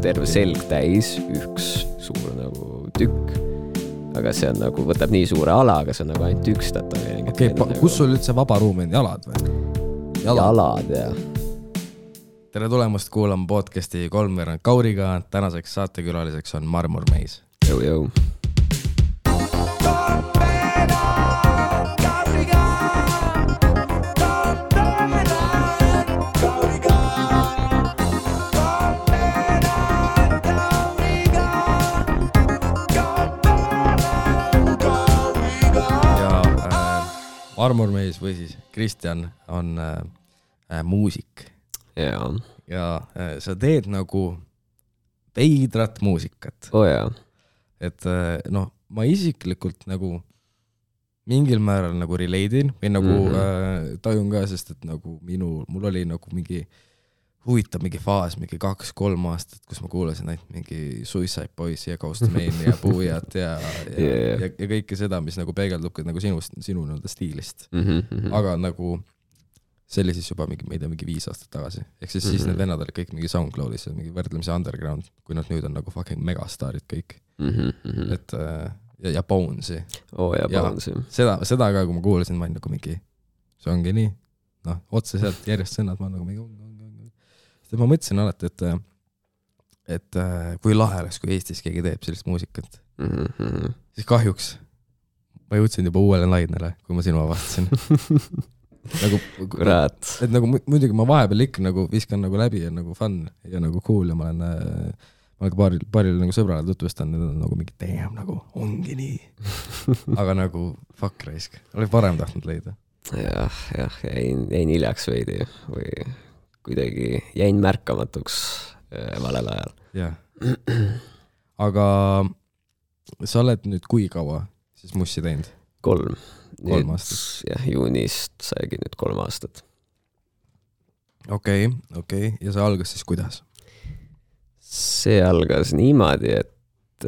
terve selg täis, üks suur nagu tükk, aga see on nagu, võtab nii suure ala, aga see on nagu ainult üks tätoveering. Okei, kus sul üldse vaba ruum on, jalad või? Jalad, jah. Tere tulemast kuulama podcasti Kolmveerand Kauriga, tänaseks saatekülaliseks on Marmormeis. Jõu. Marmormeis või siis Kristjan on muusik. Ja sa teed nagu veidrat muusikat. Jaa. Et ma isiklikult nagu mingil määral nagu relate'in või nagu tajun ka, sest et nagu mul oli nagu mingi huvitav mingi faas, mingi 2-3 aastat, kus ma kuulasin ainult mingi Suicide Boys ja Ghost Main ja Puujat ja kõike seda, mis nagu peegeldub nagu sinu stiilist. Aga nagu see oli siis juba mingi 5 aastat tagasi. Ehk siis need vennad olid kõik mingi SoundCloudis ja mingi võrdlemisi underground, kui nad nüüd on nagu fucking megastaarid kõik. Et, ja Bonesi. Ja Bonesi. Seda ka, kui ma kuulasin, ma olin nagu mingi, see ongi nii. Otse sealt järjest sõnad, ma nagu mingi ma mõtlesin alati, et kui lahe oleks, kui Eestis keegi teeb sellist muusikat, siis kahjuks ma jõudsin juba uuele lainele, kui ma sinu avastasin. Et nagu muidugi ma vahepeal ikka nagu viskan nagu läbi ja nagu fun ja nagu cool ja ma olen paaril nagu sõbrale tutvustan, need on nagu mingi damn, nagu ongi nii. Aga nagu fuck raisk, oli parem tahtnud leida. Jah, jäin hiljaks veidi või kuidagi jäin märkamatuks valel ajal. Jah. Aga sa oled nüüd kui kaua siis mussi teinud? 3 aastat. Jah, juunist saigi nüüd 3 aastat. Okei. Ja see algas siis kuidas? See algas niimoodi, et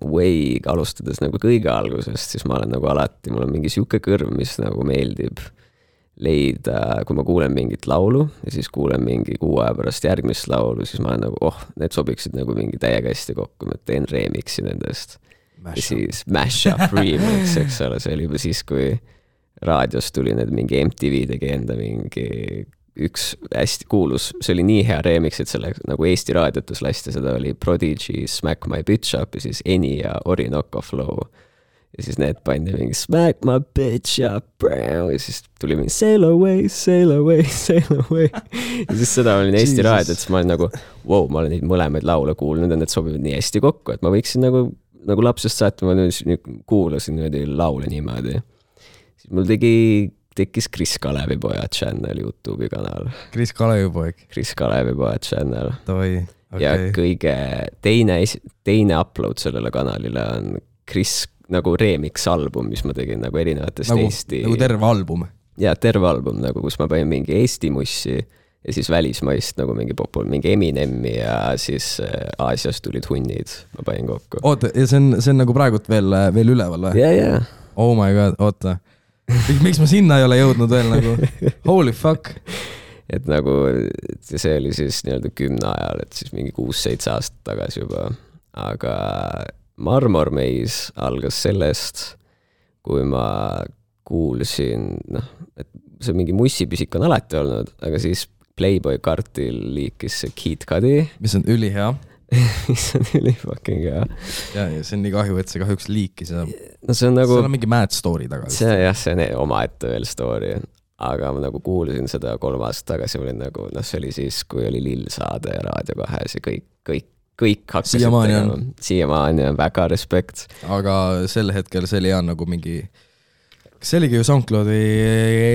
way alustades nagu kõige algusest, siis ma olen nagu alati, mul on mingi siuke kõrv, mis nagu meeldib leida, kui ma kuulen mingit laulu ja siis kuulen mingi 6 aja pärast järgmist laulu, siis ma olen nagu, need sobiksid nagu mingi täiega hästi kokku, ma teen remixi nendest. Ja siis Mashup remix, eks ole, see oli juba siis, kui raadios tuli need mingi MTV tegi enda mingi üks hästi kuulus, see oli nii hea remix, et selle nagu Eesti raadiotus lasti, seda oli Prodigy, Smack My Bitch Up ja siis Eni ja Orinoco Flow. Ja siis need pandi mingi Smack my bitch up, bro. Ja siis tuli mingi Sail away. Ja siis seda olin Eesti raadiot, siis ma olin nagu, wow, ma olen neid mõlemaid laule kuulnud ja need sobivad nii hästi kokku, et ma võiksin nagu lapsest saati, ma nüüd kuulasin laule niimoodi. Siis mul tekkis Kris Kalevipoja channel YouTube'i kanal. Kris Kalevipoja channel. Okay. Ja kõige teine upload sellele kanalile on Kris nagu remix album, mis ma tegin nagu erinevatest Eesti. Nagu terve album? Ja terve album, nagu kus ma panin mingi Eesti mussi ja siis välismaist nagu mingi Eminemi ja siis Aasias tulid hunnid, ma panin kokku. Oota, ja see on nagu praegult veel üleval või? Ja. Oh my god, oota. Miks ma sinna ei ole jõudnud veel nagu? Holy fuck. Et nagu see oli siis nii-öelda 10 ajal, et siis mingi 6-7 aastat tagasi juba. Aga Marmormeis algas sellest, kui ma kuulsin, et see mingi mussipisik on alati olnud, aga siis Playboy Kartil liikis see Kid Cudi. Mis on ülihea. Mis on ülifucking hea. Ja see on nii kahju, et see kahjuks liikis. See on nagu... See on mingi mad story taga. See on oma ette veel story. Aga ma nagu kuulsin seda 3 aastat tagasi, olin nagu, see oli siis, kui oli Lill Saade ja Raadio 2 ja kõik hakkasid tegema. Siiamaani on väga respekt. Aga sel hetkel see oli nagu mingi... See oligi ju SoundCloudi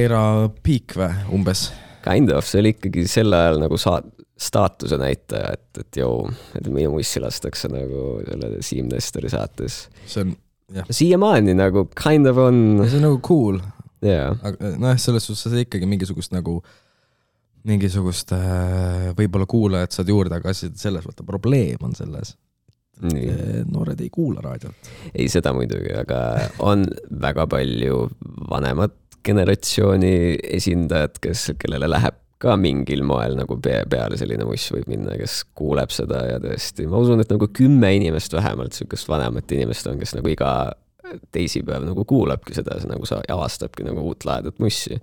era peak või umbes? Kind of, see oli ikkagi sel ajal nagu staatuse näitaja, et minu mussi lastakse nagu selle Siim Nestori saates. See on, jah. Siiamaani nagu kind of on... See on nagu cool. Jaa. Selles suhtes see ikkagi mingisugust võib-olla kuulajad saad juurde, aga selles võtta probleem on selles. Noored ei kuula raadiot. Ei seda muidugi, aga on väga palju vanemat generatsiooni esindajad, kellele läheb ka mingil moel nagu peale selline muss võib minna, kes kuuleb seda ja tõesti, ma usun, et nagu 10 inimest vähemalt, sükest vanemat inimest on, kes nagu iga teisipäev nagu kuulabki seda, nagu sa avastabki nagu uut lahedat mussi.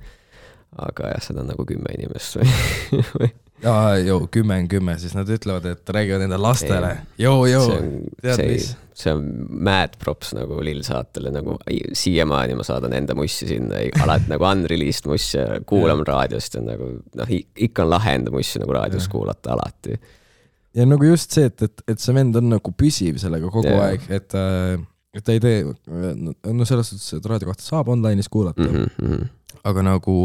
Aga jah, seda on nagu 10 inimest või? Jaa, 10, siis nad ütlevad, et räägivad enda lastele. Tead mis? See on mad props nagu Lill saatele, nagu siiamaani ma saadan enda mussi sinna, alati nagu unreleased mussi kuulam raadiost ja nagu, ikka on lahe enda mussi nagu raadiost kuulata alati. Ja nagu just see, et see vend on nagu püsiv sellega kogu aeg, et ta ei tee, no selles suhtes, et raadio kohta saab online'is kuulata, aga nagu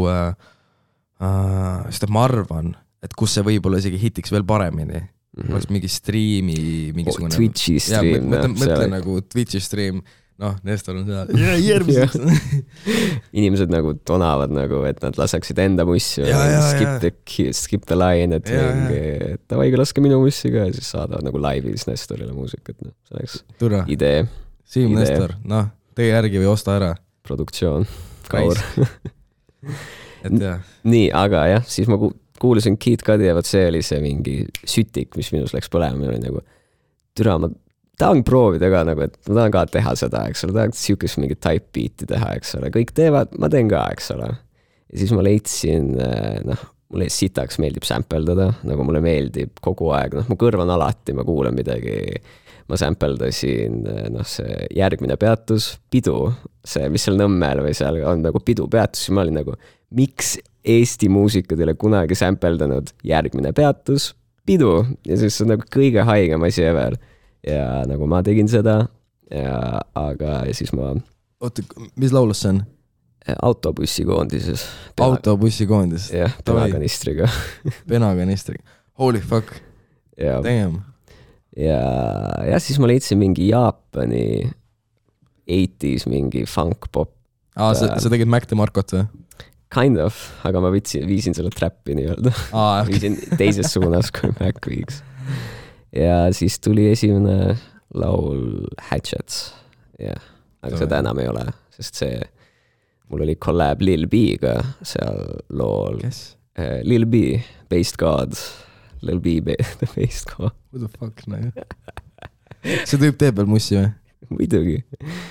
sest ma arvan, et kus see võib olla isegi hitiks veel paremini, oleks mingi striimi mingisugune Twitchi stream mõtle nagu Twitchi stream, Nestor on seal järgmiseks inimesed nagu tonavad nagu, et nad laseksid enda mussi skip the line, et tavaigi laske minu mussi ka ja siis saadavad nagu laivis Nestorile muusikat, see oleks idee Siim Nestor, tee järgi või osta ära produktsioon, kaur et jah nii, aga jah, siis ma kuulasin Kid Cudi ja see oli see mingi sütik, mis minus läks põlema, oli nagu türa, ma tahan proovida ka nagu, et ma tahan ka teha seda, eks ole, tahan siukest mingi type beat'i teha, eks ole, kõik teevad, ma teen ka, eks ole. Ja siis ma leidsin, mulle sitaks meeldib sampleldada, nagu mulle meeldib kogu aeg, mu kõrv on alati, ma kuulen midagi, ma sampledasin, see järgmine peatus, pidu, see, mis seal Nõmmel või seal on nagu pidu peatus, ja ma olin nagu, miks Eesti muusikud ei ole kunagi sampledanud järgmine peatus, pidu, ja siis see on nagu kõige haigem asi ever. Ja nagu ma tegin seda, ja siis ma... Oota, mis laulus see on? Autobussikoondises. Autobussikoondis? Jah, penakanistriga. Penakanistriga. Holy fuck. Damn. Ja siis ma leidsin mingi Jaapani 80s mingi funk-pop. Sa tegid Mac DeMarcot või? Kind of, aga ma viisin selle trappi nii-öelda. Viisin teises suunas, kui Mac viiks. Ja siis tuli esimene laul Hatchets. Aga seda enam ei ole, sest see, mul oli collab Lil B-ga seal lool. Kes? Lil B, Based God. Lil B, Based God. What the fuck, See tüüp teeb veel mussi või? Muidugi.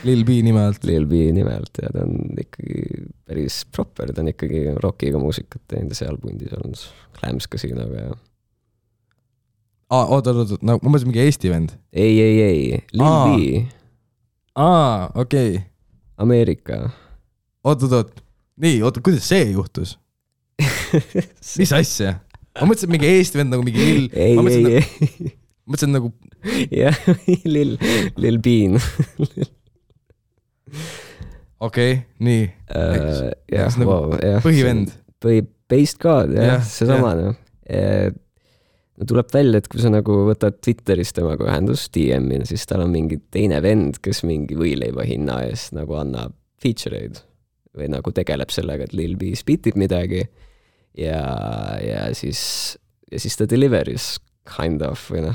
Lil B nimelt. Lil B nimelt, ja ta on ikkagi päris proper, ta on ikkagi rockiga muusikat teinud seal pundis olnud Clams Casinoga ja... Oota, ma mõtlesin mingi Eesti vend. Ei, Lil B. Okei. Ameerika. Oota. Nii, kuidas see juhtus? Mis asja? Ma mõtlesin mingi Eesti vend nagu mingi Lil... Ei. Mõtlesin nagu... Jah, Lil Bean. Okei, nii. Põhivend. Based God, jah, see sama. Tuleb välja, et kui sa nagu võtad Twitteris temaga ühendust DM-i, siis tal on mingi teine vend, kes mingi võileiva hinna eest nagu annab feature'id või nagu tegeleb sellega, et Lil B spitib midagi ja siis ta deliveris kind of või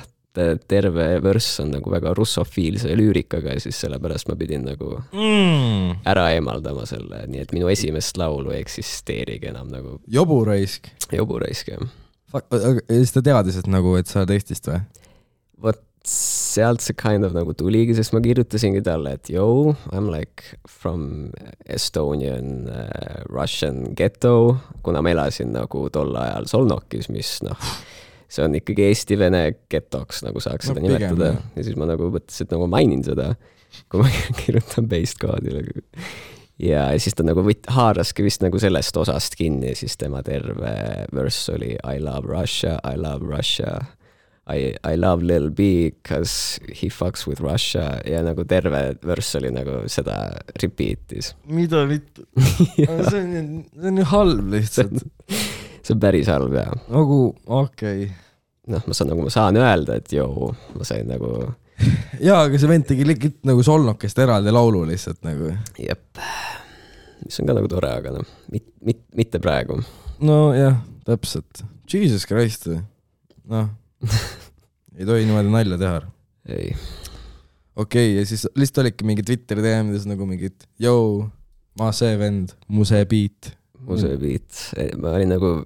terve vörss on nagu väga russofiilse lüürikaga ja siis sellepärast ma pidin nagu ära eemaldama selle, nii et minu esimest laulu ei eksisteerigi enam nagu Joburaisk, jah. Siis ta teadis, et nagu, et sa oled Eestist või? Vot sealt see kind of nagu tuligi, sest ma kirjutasingi talle, et I'm like from Estonian Russian ghetto, kuna ma elasin nagu tol ajal Solnokis, mis see on ikkagi Eesti-Vene getoks, nagu saaks seda nimetada. Ja siis ma nagu mõtlesin, et nagu mainin seda, kui ma kirjutan Based Godile. Ja siis ta nagu haaraski vist nagu sellest osast kinni, siis tema terve verse oli I love Russia, I love Lil B because he fucks with Russia ja nagu terve verse oli nagu seda repeatis. Mida vittu? See on ju halb lihtsalt. See on päris halb, jah. Nagu, okei. Ma saan öelda, et ma sain nagu... Jaa, aga see vend tegi nagu Solnokest eraldi laulu lihtsalt nagu. Jep. Mis on ka nagu tore, aga mitte praegu. No jah, täpselt. Jesus Christ. Ei tohi niimoodi nalja teha. Ei. Okei, ja siis lihtsalt olidki mingi Twitteri teemides nagu mingid ma see vend, mu see beat. Mu see beat. Ma olin nagu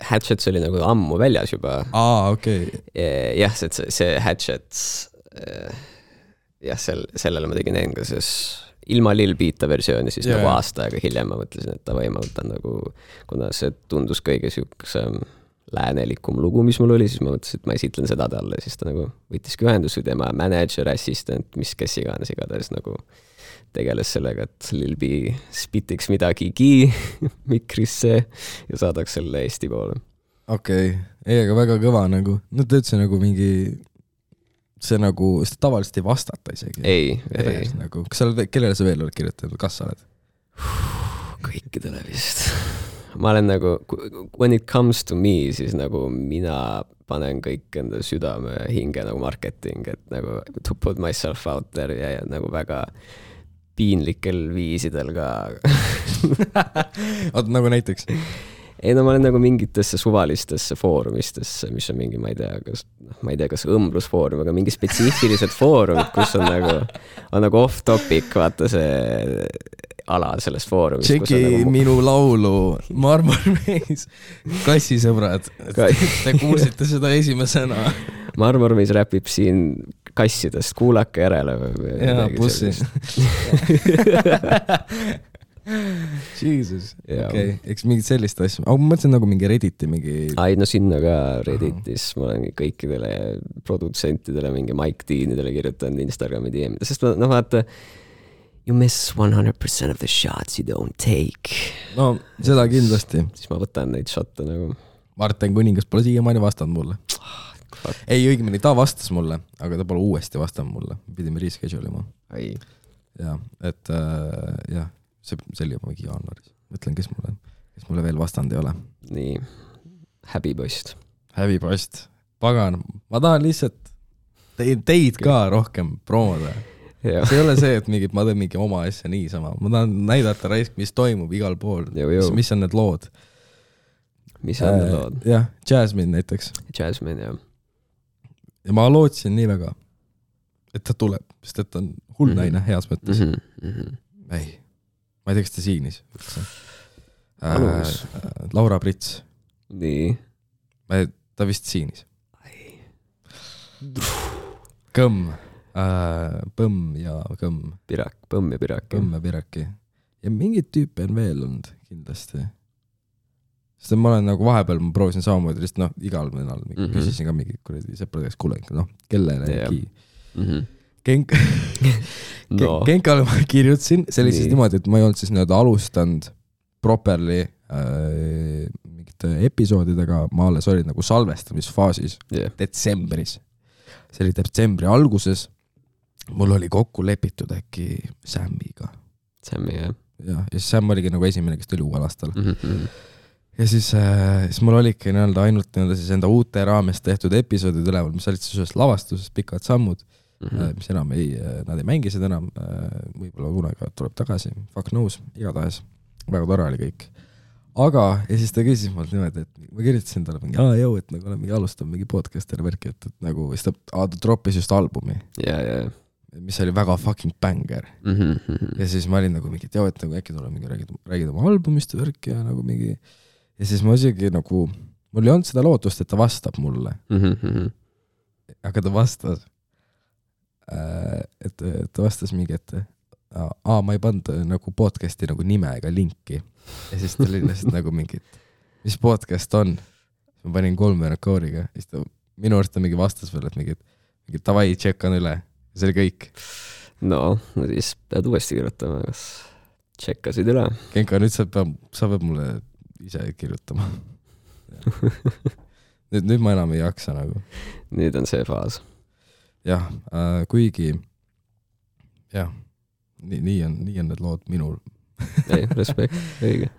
Hatchets oli nagu ammu väljas juba. okei. Jah, see Hatchets, jah, sellele ma tegin englases ilma Lil Beata versiooni, siis nagu aasta aega hiljem ma mõtlesin, et ma võtan nagu, kuna see tundus kõige siukesem läänelikum lugu, mis mul oli, siis ma mõtlesin, et ma esitlen seda talle, siis ta nagu võttiski ühendus või tema manager, assistant, kes iganes igatahes nagu tegeles sellega, et Lil B spitiks midagigi mikrisse ja saadaks selle Eesti poole. Okei, aga väga kõva nagu, no ta ütles nagu mingi see nagu, seda tavaliselt ei vastata isegi. Ei. Nagu, kas sa oled, kellele sa veel oled kirjutanud, kas sa oled? Kõikidele vist. Ma olen nagu, when it comes to me, siis nagu mina panen kõik enda südame hinge nagu marketing, et nagu to put myself out there ja nagu väga piinlikel viisidel ka. Oot, nagu näiteks? Ei, no ma olen nagu mingitesse suvalistesse foorumistesse, mis on mingi, ma ei tea, kas õmblusfoorum, aga mingi spetsiifilised foorumid, kus on nagu off topic, vaata see ala sellest foorumist. Tšeki nagu minu laulu Marmormees, kassisõbrad, te kuulsite seda esimesena. Marmormees räpib siin kassidest, kuulake järele. Jaa, bussi. Jesus, okei, eks mingid sellist asja, aga ma mõtlesin nagu mingi Redditi Ai, no sinna ka Redditis ma olen kõikidele produtsentidele, mingi Mike Deanidele kirjutanud Instagrami DM-ida, sest no vaata, you miss 100% of the shots you don't take. No, seda kindlasti. Siis ma võtan neid shotte nagu. Martin Kuningas pole siiamaani vastanud mulle. Ei, õigemini, ta vastas mulle, aga ta pole uuesti vastanud mulle. Pidime reschedule ima. Ai. Ja, et jah. See oli juba mingi jaanuaris. Mõtlen, kes mulle veel vastand ei ole. Nii, häbipost. Häbipost. Pagan, ma tahan lihtsalt teid ka rohkem promoda. See ei ole see, et ma teen mingi oma asja niisama. Ma tahan näidata raisk, mis toimub igal pool. Mis on need lood. Mis on need lood? Jah, Jasmine näiteks. Jasmine, jah. Ja ma lootsin nii väga, et ta tuleb, sest et on hull naine heas mõttes. Ei. Ma ei tea, kas ta siinis. Laura Prits. Nii. Ta vist siinis. Kõmm. Põmm ja kõmm. Pirak, põmm ja pirak. Põmm ja piraki. Ja mingid tüüpe on veel olnud kindlasti. Sest ma olen nagu vahepeal, ma proovisin samamoodi, lihtsalt igal mõnal küsisin ka mingi kuradi sõpradeks kuulengi, kellelegi. Kenkale ma kirjutasin, see oli siis niimoodi, et ma ei olnud siis alustanud properly mingite episoodidega, ma alles olin nagu salvestamisfaasis detsembris. See oli detsembri alguses, mul oli kokku lepitud äkki Sammiga. Sammi, jah. Ja siis Sam oligi nagu esimene, kes tuli uuel aastal. Ja siis mul oligi ainult siis enda uute raames tehtud episoodid üleval, mis olid siis ühest lavastusest pikad sammud, mis enam nad ei mängi seda enam, võib-olla kunagi tuleb tagasi, fuck knows, igatahes, väga tore oli kõik. Aga, ja siis ta küsis mult niimoodi, et ma kirjutasin talle mingi, et nagu olen mingi alustanud mingi podcast'ile värki, et nagu, siis ta droppis just albumi, mis oli väga fucking banger. Ja siis ma olin nagu mingi, et nagu äkki tuleb mingi räägid oma albumist värki ja nagu mingi, ja siis ma isegi nagu, mul ei olnud seda lootust, et ta vastab mulle. Aga ta vastas, et ta vastas mingi, et ma ei pannud nagu podcasti nagu nime ega linki. Ja siis ta oli lihtsalt nagu mingi, mis podcast on? Ma panin 3 rekooriga. Minu arust ta mingi vastas veel, et mingi tavai, tšekkan üle. See oli kõik. No siis pead uuesti kirjutama, kas tšekkasid üle? Kenka, nüüd sa peab mulle ise kirjutama. nüüd ma enam ei jaksa nagu. Nüüd on see faas. Jah, kuigi jah, nii on need lood minul. Ei, respekt, õige.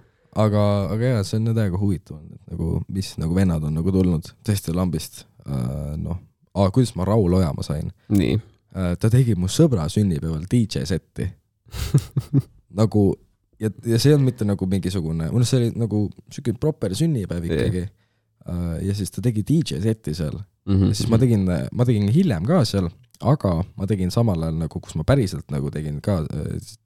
Aga jah, see on täiega huvitav, nagu, mis nagu vennad on nagu tulnud tõesti lambist. Kuidas ma Raul Ojamaa sain? Nii. Ta tegi mu sõbra sünnipäeval DJ-setti. Nagu, ja see on mitte nagu mingisugune, see oli nagu selline proper sünnipäev ikkagi. Ja siis ta tegi DJ-setti seal. Ja siis ma tegin hiljem ka seal, aga ma tegin samal ajal nagu, kus ma päriselt nagu tegin ka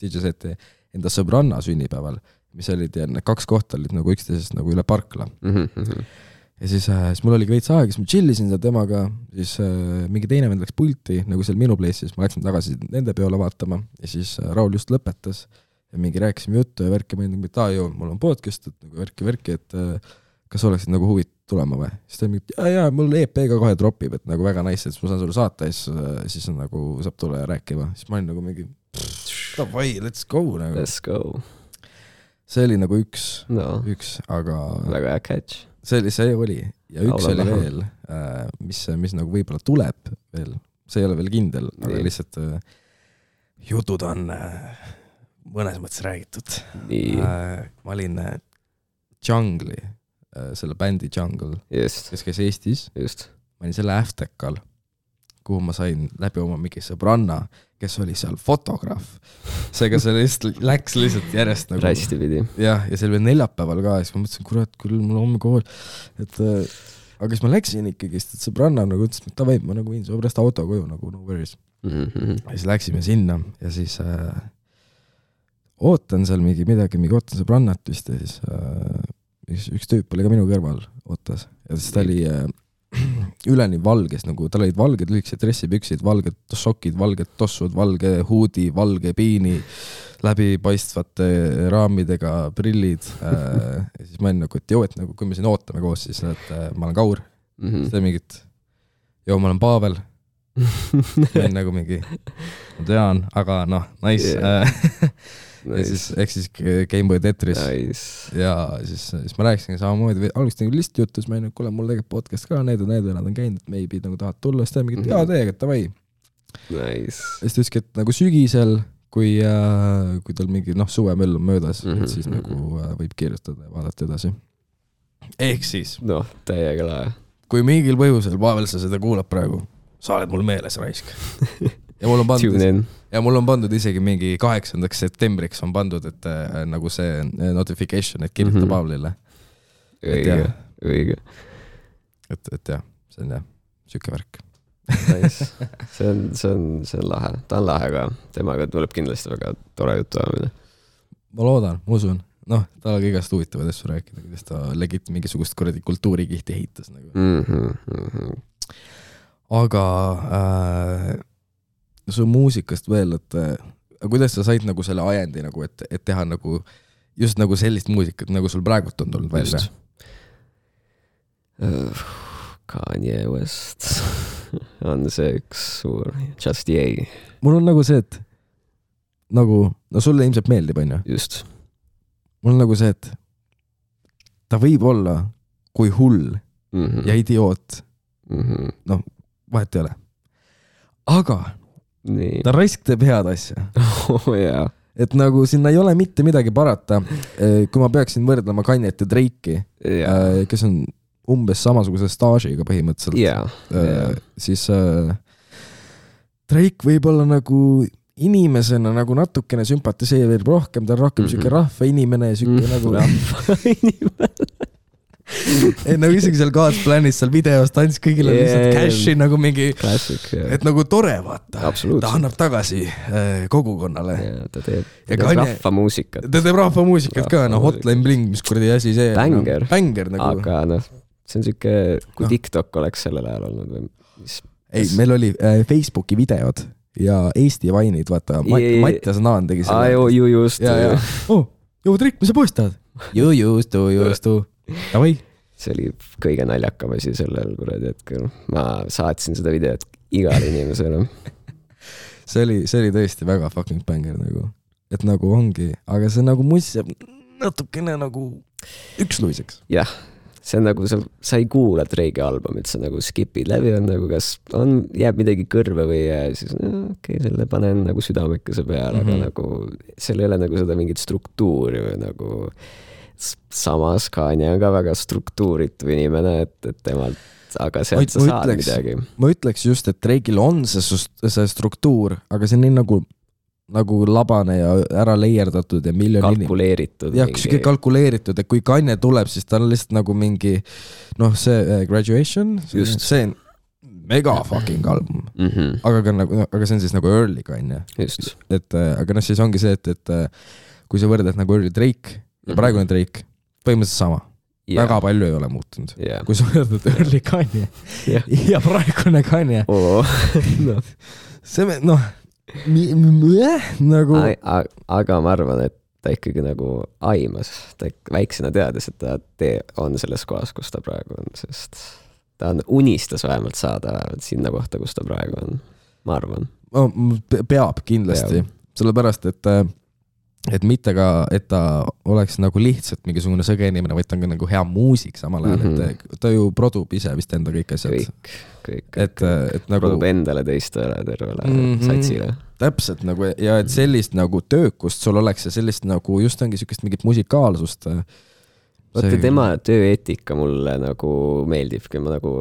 DJ-seti enda sõbranna sünnipäeval, mis olid ja 2 kohta olid nagu üksteisest nagu üle parkla. ja siis mul oli veits aega, siis ma chillisin seal temaga, siis mingi teine vend läks pulti, nagu seal minu place'is, ma läksin tagasi nende peole vaatama ja siis Raul just lõpetas ja mingi rääkisime juttu ja värki, ma olin nagu, mul on podcast, et nagu värki, et kas oleksid nagu huvit tulema või? Siis ta mingi, jaa, mul EP ka kohe dropib, et nagu väga nice, et ma saan sulle saata ja siis on nagu saab tulla ja rääkima. Siis ma olin nagu mingi, davai, let's go nagu. Let's go. See oli nagu üks, aga väga hea catch. See oli ja üks oli veel, mis nagu võib-olla tuleb veel, see ei ole veel kindel, aga lihtsalt jutud on mõnes mõttes räägitud. Ma olin Jungle'i, selle bändi Jungle, kes käis Eestis. Ma olin selle Aftekal, kuhu ma sain läbi oma mingi sõbranna, kes oli seal fotograaf. Seega see läks lihtsalt järjest nagu... Rästi pidi. Ja see oli veel neljapäeval ka, siis ma mõtlesin, kurat, küll mul homme kool. Aga siis ma läksin ikkagi, et sõbranna nagu ütles, et ta võib, ma nagu viin su pärast auto koju, nagu no worries. Ja siis läksime sinna ja siis ootan seal midagi ootan sõbrannat vist ja siis üks tüüp oli ka minu kõrval ootas ja siis ta oli üleni valges, nagu tal olid valged lühikesed dressipüksid, valged sokid, valged tossud, valge huudi, valge piini, läbipaistvate raamidega prillid. Ja siis ma olin nagu, et joo, et nagu, kui me siin ootame koos, siis et ma olen Kaur. Siis ta mingit, joo, ma olen Pavel. Ma olin nagu mingi, ma tean, aga noh, nice. Ja siis Gameboy Tetris ja siis ma rääkisin samamoodi, algust nagu lihtsalt juttu, siis ma olin, kuule, mul tegelikult podcast ka, need nad on käinud, et maybe nagu tahad tulla, siis ta mingit, jaa, teega, et davai. Nice. Ja siis ta ütleski, et nagu sügisel, kui tal mingi suvemöll on möödas, et siis nagu võib kirjutada ja vaadata edasi. Ehk siis täiega lae. Kui mingil põhjusel, Pavel, sa seda kuulab praegu, sa oled mul meeles raisk. Ja mul on pandud isegi mingi 8. septembriks on pandud, et nagu see notification, et kirjuta Pavlile. Õige. Et jah, see on jah, süke värk. Nice. See on lahe. Ta on lahe ka. Temaga tuleb kindlasti väga tore jutu ajamine. Ma loodan, ma usun. Ta oli igast huvitavad asju rääkida, kuidas ta legit mingisugust kuradi kultuurikihti ehitas. Nagu. Aga su muusikast veel, et kuidas sa said nagu selle ajendi, nagu, et teha nagu just nagu sellist muusikat, nagu sul praegult on tulnud välja? Kanye West on see üks suur Just Yay. Mul on nagu see, et nagu, sulle ilmselt meeldib, on ju? Just. Mul on nagu see, et ta võib olla kui hull ja idioot. Vahet ei ole. Aga ta raisk teeb head asja. Yeah. Et nagu sinna ei ole mitte midagi parata. Kui ma peaksin võrdlema Kanjet ja Drake'i, kes on umbes samasuguse staažiga põhimõtteliselt, siis Drake võib olla nagu inimesena nagu natukene sümpatiseerib rohkem, ta on rohkem süke rahva inimene ja süke nagu rahva inimene. Nagu isegi seal Godsplan'is seal videos tants kõigile lihtsalt cashi nagu mingi Classic, et nagu tore vaata. Absoluutselt. Ta annab tagasi kogukonnale. Ta teeb rahvamuusikat. Ta teeb rahvamuusikat ka, Hotline Bling, mis kuradi asi see. Banger nagu. Aga see on süke, kui TikTok oleks sellel ajal olnud või mis? Ei, meil oli Facebooki videod ja Eesti vainid, vaata, Mattias Naan tegi selle. Just. Trik, mis sa postad? Just. Tavai. See oli kõige naljakam asi sellel kuradi hetkel. Ma saatsin seda videot igale inimesele. See oli tõesti väga fucking banger nagu. Et nagu ongi, aga see nagu muist natukene nagu üksluiseks. Jah, see on nagu, sa ei kuula Drake'i albumit, sa nagu skipid läbi, on nagu kas jääb midagi kõrve või jää, siis okei, selle panen nagu südamekese peale, aga nagu seal ei ole nagu seda mingit struktuuri või nagu samas Kanye on ka väga struktuuritu inimene, et temalt, aga sealt sa saad midagi. Ma ütleks just, et Drake'il on see struktuur, aga see on nii nagu labane ja ära leierdatud ja kalkuleeritud. Jah, mingi... kalkuleeritud, et kui Kanye tuleb, siis ta on lihtsalt nagu mingi see Graduation, see on mega fucking album. Aga see on siis nagu early Kanye. Aga siis ongi see, et kui sa võrdad nagu early Drake ja praegune Drake, põhimõtteliselt sama. väga palju ei ole muutunud yeah. Kui sa võtad early Kanye yeah. ja praegune Kanye no. see nagu aga ma arvan, et ta ikkagi nagu aimas, ta väiksena teadis, et ta on selles kohas, kus ta praegu on, sest ta unistas vähemalt saada sinna kohta, kus ta praegu on, ma arvan. Peab kindlasti, sellepärast, et mitte ka, et ta oleks nagu lihtsalt mingisugune sõge inimene, vaid ta on ka nagu hea muusik samal ajal, et ta ju produb ise vist enda kõik asjad. Kõik. Et nagu produb endale teistele tervele satsile. Täpselt nagu, ja et sellist nagu töökust sul oleks ja sellist nagu just ongi sellist mingit musikaalsust. Vaata tema tööeetika mulle nagu meeldibki, ma nagu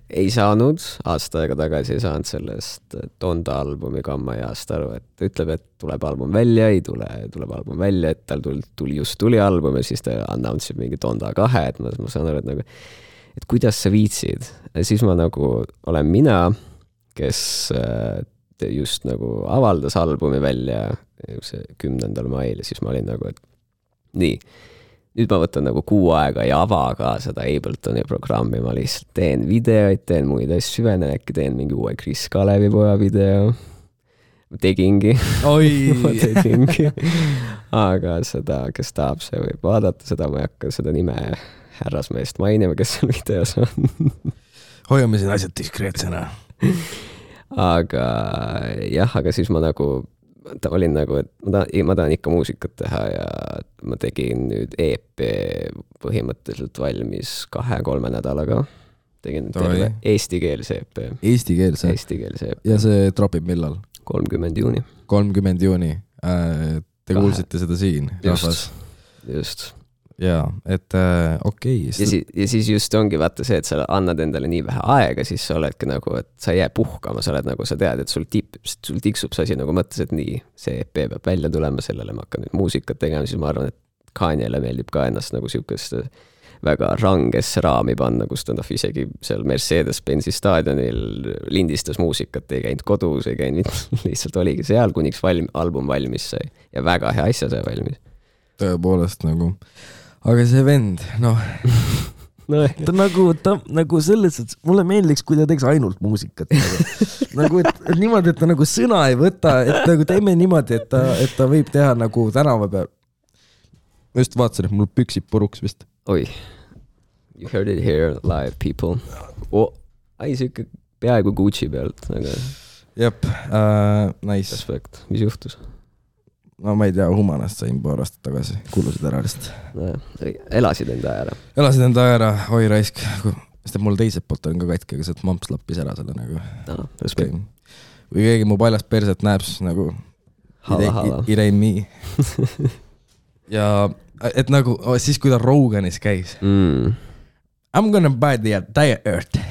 ei saanud, aasta aega tagasi ei saanud sellest Donda albumi kamma ja aasta aru, et ta ütleb, et tuleb album välja, ei tule, tuleb album välja, et tal tuli album ja siis ta announce'ib mingi Donda 2, et ma saan aru, et nagu et kuidas sa viitsid. Ja siis ma nagu olen mina, kes just nagu avaldas albumi välja 10. mail ja siis ma olin nagu, et nii, nüüd ma võtan nagu 6 aega ja ava ka seda Abletoni programmi, ma lihtsalt teen videoid, teen muid asju, süvenen, äkki teen mingi uue Chris Kalevipoja video. Ma tegingi. Ma tegingi. Aga seda, kes tahab, see võib vaadata, seda ma ei hakka seda nime härrasmeest mainima, kes seal videos on. Hoiame siin asjad diskreetsena. Aga jah, aga siis ma nagu olin nagu, et ma tahan ikka muusikat teha ja ma tegin nüüd EP põhimõtteliselt valmis 2-3 nädalaga. Tegin terve eestikeelse EP. Eestikeelse EP. Ja see tropib millal? 30. juuni. 30. juuni. Te kuulsite seda siin? Just. Jaa, et okei. Ja siis just ongi vaata see, et sa annad endale nii vähe aega, siis sa oledki nagu, et sa ei jää puhkama, sa oled nagu, sa tead, et sul tiksub see asi nagu mõttes, et nii, see EP peab välja tulema, sellele ma hakkan nüüd muusikat tegema, siis ma arvan, et Kanyele meeldib ka ennast nagu siukest väga rangesse raami panna, kus ta isegi seal Mercedes-Benzi staadionil lindistas muusikat, ei käinud kodus, ei käinud, lihtsalt oligi seal, kuniks album valmis sai ja väga hea asja sai valmis. Tõepoolest nagu aga see vend, noh, ta nagu selles, et mulle meeldiks, kui ta teeks ainult muusikat. Nagu, et niimoodi, et ta nagu sõna ei võta, et nagu teeme niimoodi, et ta võib teha nagu tänava peal. Ma just vaatasin, et mul püksib puruks vist. Oi, you heard it here live, people. Siuke peaaegu Gucci pealt. Jep, nice. Respekt, mis juhtus? No ma ei tea, Humanast sain paar aastat tagasi, kulusid ära lihtsalt. Elasid enda aja ära? Elasid enda aja ära, oi raisk. Sest mul teiselt poolt on ka katki, aga sealt mamps lappis ära selle nagu. No, respekt. Või keegi mu paljast perset näeb, siis nagu it ain't me. Ja et nagu siis, kui ta Roganis käis. I'm gonna buy the entire earth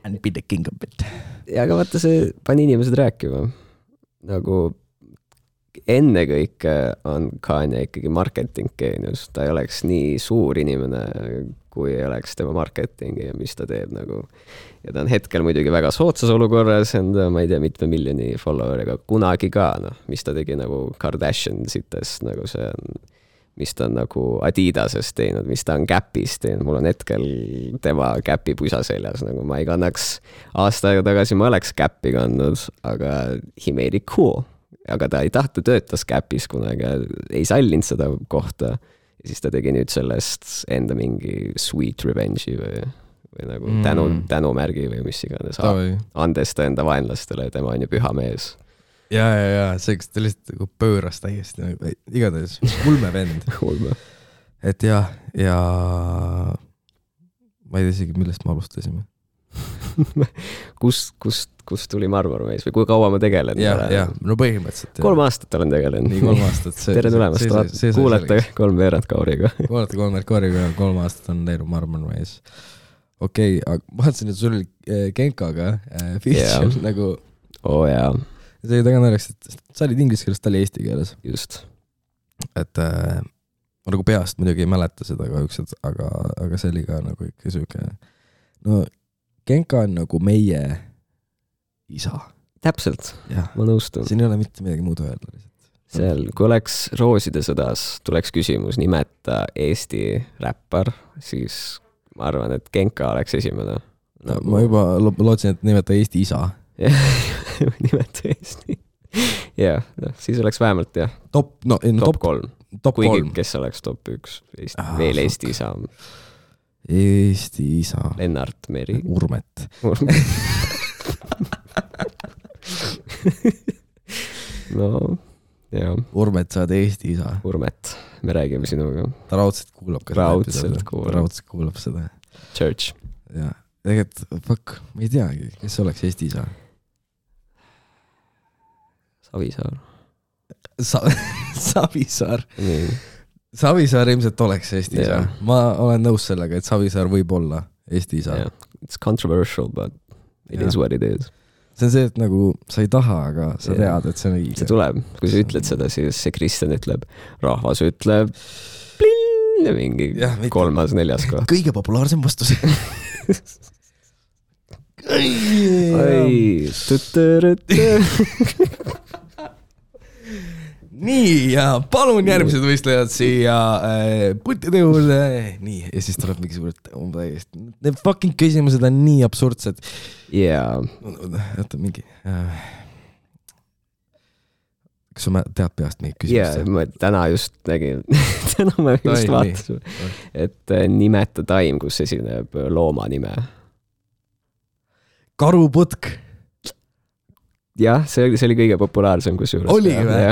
and be the king of it. Ja aga vaata, see pani inimesed rääkima. Nagu enne kõik on Kanye ikkagi marketing geenius. Ta ei oleks nii suur inimene, kui ei oleks tema marketingi ja mis ta teeb nagu. Ja ta on hetkel muidugi väga sootsas olukorras, ma ei tea, mitme miljoni followeriga kunagi ka, mis ta tegi nagu Kardashian sitest, nagu see on, mis ta on nagu Adidasest teinud, mis ta on Gapis teinud. Mul on hetkel tema Gapi pusa seljas, nagu ma ei kannaks aasta aega tagasi, ma oleks Gapi kandnud, aga he made it cool. Aga ta ei tahtu töötas Gapis kunagi, ei sallinud seda kohta ja siis ta tegi nüüd sellest enda mingi sweet revenge'i või nagu tänumärgi või mis iganes. Andes ta enda vaenlastele, tema on ju püha mees. Ja, see ta lihtsalt nagu pööras täiesti, igatahes ulme vend. Et ja ma ei tea isegi, millest me alustasime. Kust tuli Marmormees või kui kaua ma tegelen? Ja, no põhimõtteliselt. 3 aastat olen tegelenud. Nii 3 aastat. Tere tulemast, kuulete 3 veerand kauriga. Kuulete 3 veerand kauriga, 3 aastat on teinud Marmormees. Okei, aga ma vaatasin, et sul oli Genkaga feature nagu... jaa. See oli taga naljakas, et sa olid inglise keeles, ta oli eesti keeles. Just. Et ma nagu peast muidugi ei mäleta seda kahjuks, aga see oli ka nagu ikka siuke... No Genka on nagu meie isa. Täpselt, ma nõustun. Siin ei ole mitte midagi muud öelda. seal, kui oleks Rooside sõdas, tuleks küsimus nimeta Eesti räppar, siis ma arvan, et Genka oleks esimene. Ma juba lootsin, et nimeta Eesti isa. Nimeta Eesti. Jah, siis oleks vähemalt jah. Top 3. Kuigi, kes oleks top 1. Veel Eesti isa. Eesti isa. Lennart Meri. Urmet. No, jah. Urmet, sa oled Eesti isa. Urmet, me räägime sinuga. Ta raudselt kuulab. Raudselt kuulab seda. Church. Ja, tegelikult, fuck, ma ei teagi, kes oleks Eesti isa. Savisaar. Savisaar. Nii. Savisaar ilmselt oleks Eesti isa. Ma olen nõus sellega, et Savisaar võib olla Eesti isa. It's controversial, but it is what it is. See on see, et nagu sa ei taha, aga sa tead, et see on õige. See tuleb. Kui sa ütled seda, siis see Kristjan ütleb, rahvas ütleb plinn ja mingi 3., 4. koht. Kõige populaarsem vastus. Nii, ja palun järgmised võistlejad siia puttide juurde. Nii, ja siis tuleb mingi suured need fucking küsimused on nii absurdsed. Oota, mingi kas sa tead peast mingi küsimusi? Ma täna just nägin täna ma just vaatasin, et nimeta taim, kus esineb looma nime. Karuputk. Jah, see oli kõige populaarsem kusjuures. Oligi või?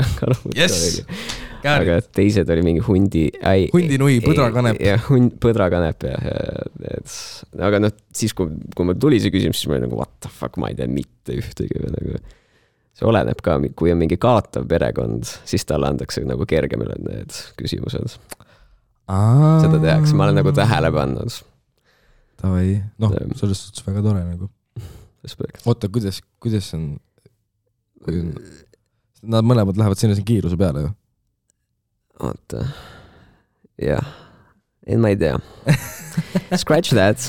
Yes! Aga teised oli mingi hundinui, põdrakanep. Jah, põdrakanep. Aga siis, kui ma tuli see küsimus, siis ma olin nagu, what the fuck, ma ei tea mitte ühtegi. See oleneb ka, kui on mingi kaotav perekond, siis talle antakse nagu kergemile need küsimused. Seda tehakse, ma olen nagu tähele pannud. Tavai, selles suhtes väga tore nagu. Oota, kuidas on nad mõlemad lähevad sinna kiiruse peale ju? Oota, jah. Ma ei tea. Scratch that.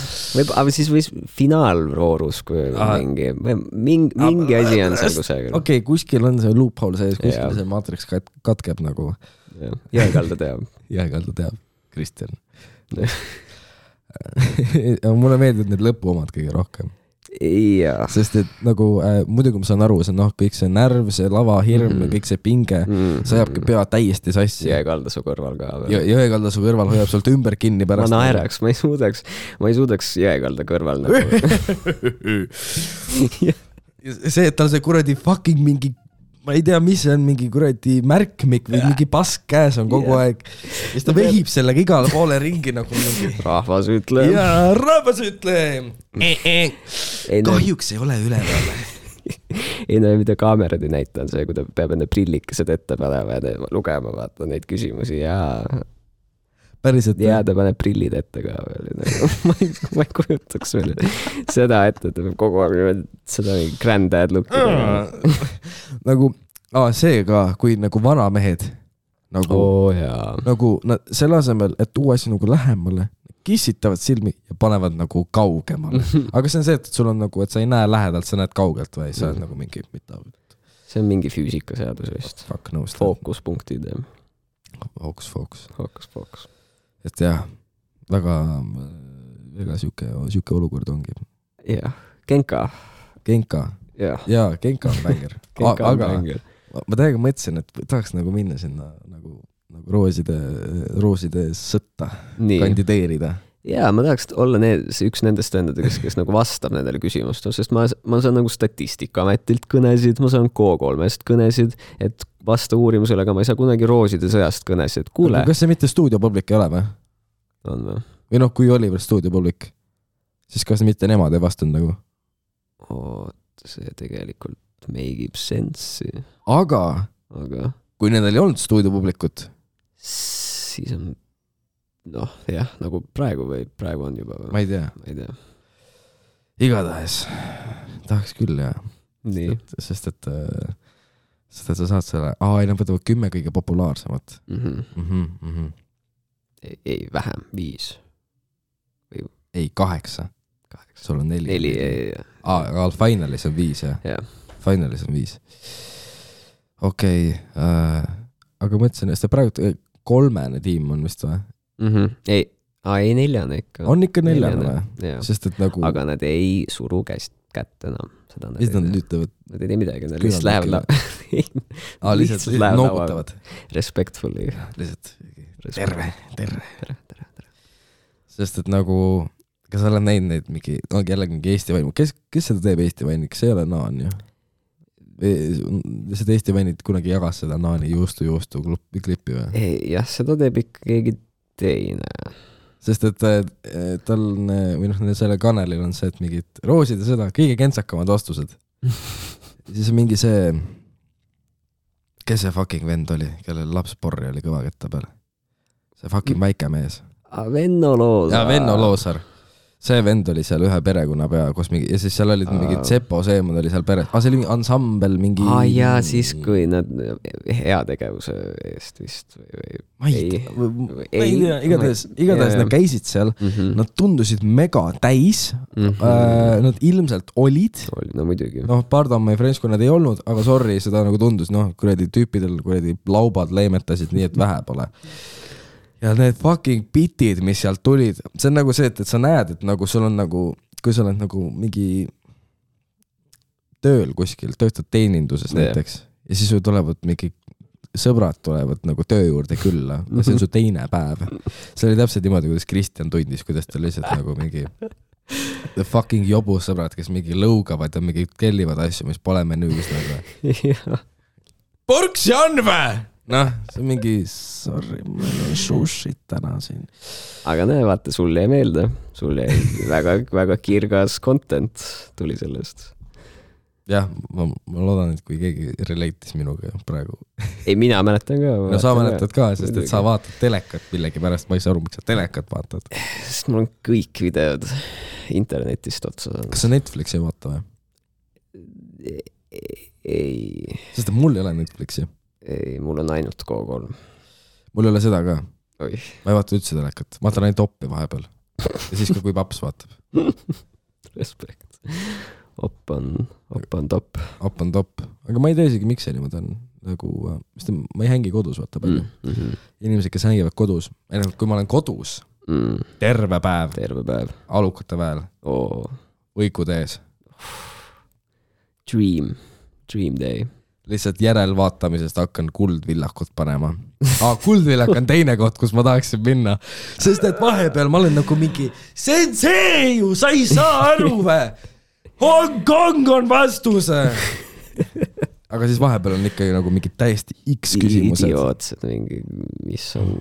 Aga siis võis finaalvoorus, kui mingi asi on seal kusagil. Okei, kuskil on see loophole sees, kuskil see maatriks katkeb nagu. Jääkalda teab. Jääkalda teab, Kristjan. Mulle meeldib need lõpu omad kõige rohkem. Ja. Sest et nagu muidugi ma saan aru, see kõik see närv, see lava hirm ja kõik see pinge, see ajabki pea täiesti sassi. Jõekalda su kõrval ka. Jõekalda su kõrval hoiab sult ümber kinni pärast. Ma naeraks, ma ei suudaks jõekalda kõrval nagu. See, et tal see kuradi fucking mingi, ma ei tea, mis see on, mingi kuradi märkmik või mingi pask käes on kogu aeg. Ja siis ta vehib sellega igale poole ringi nagu mingi. Rahvas ütleb. Jaa, rahvas ütleb. Kahjuks ei ole üleval. Ei no, mida kaamerad ei näita on see, kui ta peab enne prillikesed ette panema ja lugema vaata neid küsimusi ja päriselt. Ja ta paneb prillid ette ka veel. Ma ei kujutaks veel seda ette, et ta peab kogu aeg seda granddad looki. Nagu, see ka, kui nagu vanamehed nagu selle asemel, et tuua asi nagu lähemale, kissitavad silmi ja panevad nagu kaugemale. Aga see on see, et sul on nagu, et sa ei näe lähedalt, sa näed kaugelt või sa oled nagu mingi mida. See on mingi füüsikaseadus vist. Fookuspunktid. Fookus. Et jah, väga siuke olukord ongi. Jah, Genka. Jaa, Genka on bänger. Aga ma täiega mõtlesin, et tahaks nagu minna sinna nagu rooside sõtta kandideerida. Jaa, ma tahaks olla üks nendest vendadest, kes nagu vastab nendele küsimustele, sest ma saan nagu Statistikaametilt kõnesid, ma saan K3-st kõnesid, et vasta uurimusele, aga ma ei saa kunagi rooside sõjast kõnesid. Kuule. Kas see mitte stuudiopublik ei ole või? On või? Või kui oli veel stuudiopublik, siis kas mitte nemad ei vastanud nagu? See tegelikult meigib sensi. Aga kui nendel ei olnud stuudiopublikut, siis on jah, nagu praegu on juba või? Ma ei tea. Igatahes tahaks küll, jah. Nii. Sest et sa saad selle nad võtavad 10 kõige populaarsemat. Ei, vähem, 5. Ei, 8. Sul on 4. 4, aga finalis on 5, jah? Finalis on 5. okei, aga mõtlesin, et see praegu 3 tiim on vist või? Ei, 4 ikka. On ikka 4 või? Sest et nagu... Aga nad ei suru kätt enam. Mis nad ütlevad? Nad ei tee midagi, nad lihtsalt lähevad lihtsalt noogutavad. Respectfully. Lihtsalt terve. Sest et nagu, kas sa oled näinud neid mingi, jällegi mingi Eesti vain, kes seda teeb Eesti vain, kas ei ole Naan ju? Seda Eesti vainid kunagi jagas seda Naani juustu klippi või? Jah, seda teeb ikka keegi teine. Sest et tal või selle kanalil on see, et mingid roosid ja seda, kõige kentsakamad vastused. Siis on mingi see, kes see fucking vend oli, kellel lapsporri oli kõva ketta peal? See fucking väike mees. Venno Loosar. Ja Venno Loosar. See vend oli seal ühe perekonna pea, kus mingi, ja siis seal olid mingid Sepo Seemad oli seal peres. See oli mingi ansambel, mingi... ja siis kui nad heategevuse eest vist või... Ma ei tea, igatahes nad käisid seal, nad tundusid mega täis, nad ilmselt olid. No muidugi. Pardon, my friends, kui nad ei olnud, aga sorry, seda nagu tundus, kuradi tüüpidel, kuradi laubad leemetasid nii, et vähe pole. Ja need fucking bitid, mis sealt tulid, see on nagu see, et sa näed, et nagu sul on nagu, kui sa oled nagu mingi tööl kuskil, töötad teeninduses näiteks, ja siis tulevad mingi sõbrad tulevad nagu töö juurde külla, ja see on su teine päev. See oli täpselt niimoodi, kuidas Kristjan tundis, kuidas ta lihtsalt nagu mingi the fucking jobus sõbrad, kes mingi lõugavad ja mingi kellivad asju, mis pole menüüs nagu. Porks Janve! See on mingi, sorry, meil on sushit täna siin. Aga vaata, sul jäi meelde. Sul jäi väga kirgas content tuli sellest. Jah, ma loodan, et kui keegi relate'is minuga praegu. Ei, mina mäletan ka. No sa mäletad ka, sest et sa vaatad telekat millegi pärast, ma ei saa aru, miks sa telekat vaatad. Sest mul on kõik videod internetist otsa. Kas sa Netflixi ei vaata või? Ei. Sest et mul ei ole Netflixi. Ei, mul on ainult Go3. Mul ei ole seda ka. Oi. Ma ei vaata üldse telekat. Ma vaatan ainult oppi vahepeal. Ja siis kui paps vaatab. Respekt. Opp on top. Opp on top. Aga ma ei tea isegi, miks see niimoodi on. Nagu, ma ei hängi kodus, vaata palju. Inimesed, kes hängivad kodus. Kui ma olen kodus, terve päev. Alukate väel. Võikud ees. Dream day. Lihtsalt järelvaatamisest hakkan Kuldvillakut panema. Kuldvillak on teine koht, kus ma tahaksin minna. Sest et vahepeal ma olen nagu mingi see ju, sa ei saa aru või? Hong Kong on vastuse! Aga siis vahepeal on ikkagi nagu mingi täiesti X küsimused. Idiootsed mingi, mis on...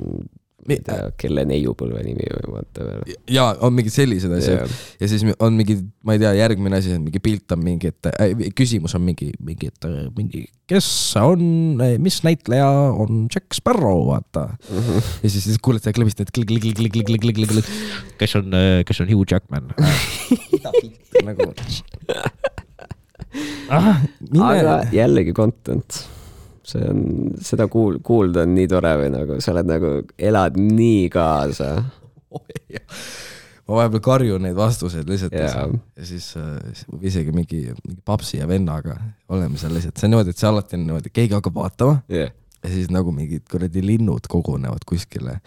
kelle neiupõlve nimi või vaata veel. Ja on mingid sellised asjad. Ja siis on mingi, ma ei tea, järgmine asi, mingi pilt on mingi, et küsimus on mingi, kes on, mis näitleja on Jack Sparrow, vaata. Ja siis kuuled seda klõbist, et klik. Kes on Hugh Jackman? Nagu... Aga jällegi content. Seda kuulda on nii tore või nagu, sa oled nagu, elad nii kaasa. Ma vahepeal karjun neid vastuseid lihtsalt ja siis isegi mingi papsi ja vennaga oleme seal lihtsalt. See on niimoodi, et see alati on niimoodi, keegi hakkab vaatama ja siis nagu mingid kuradi linnud kogunevad kuskile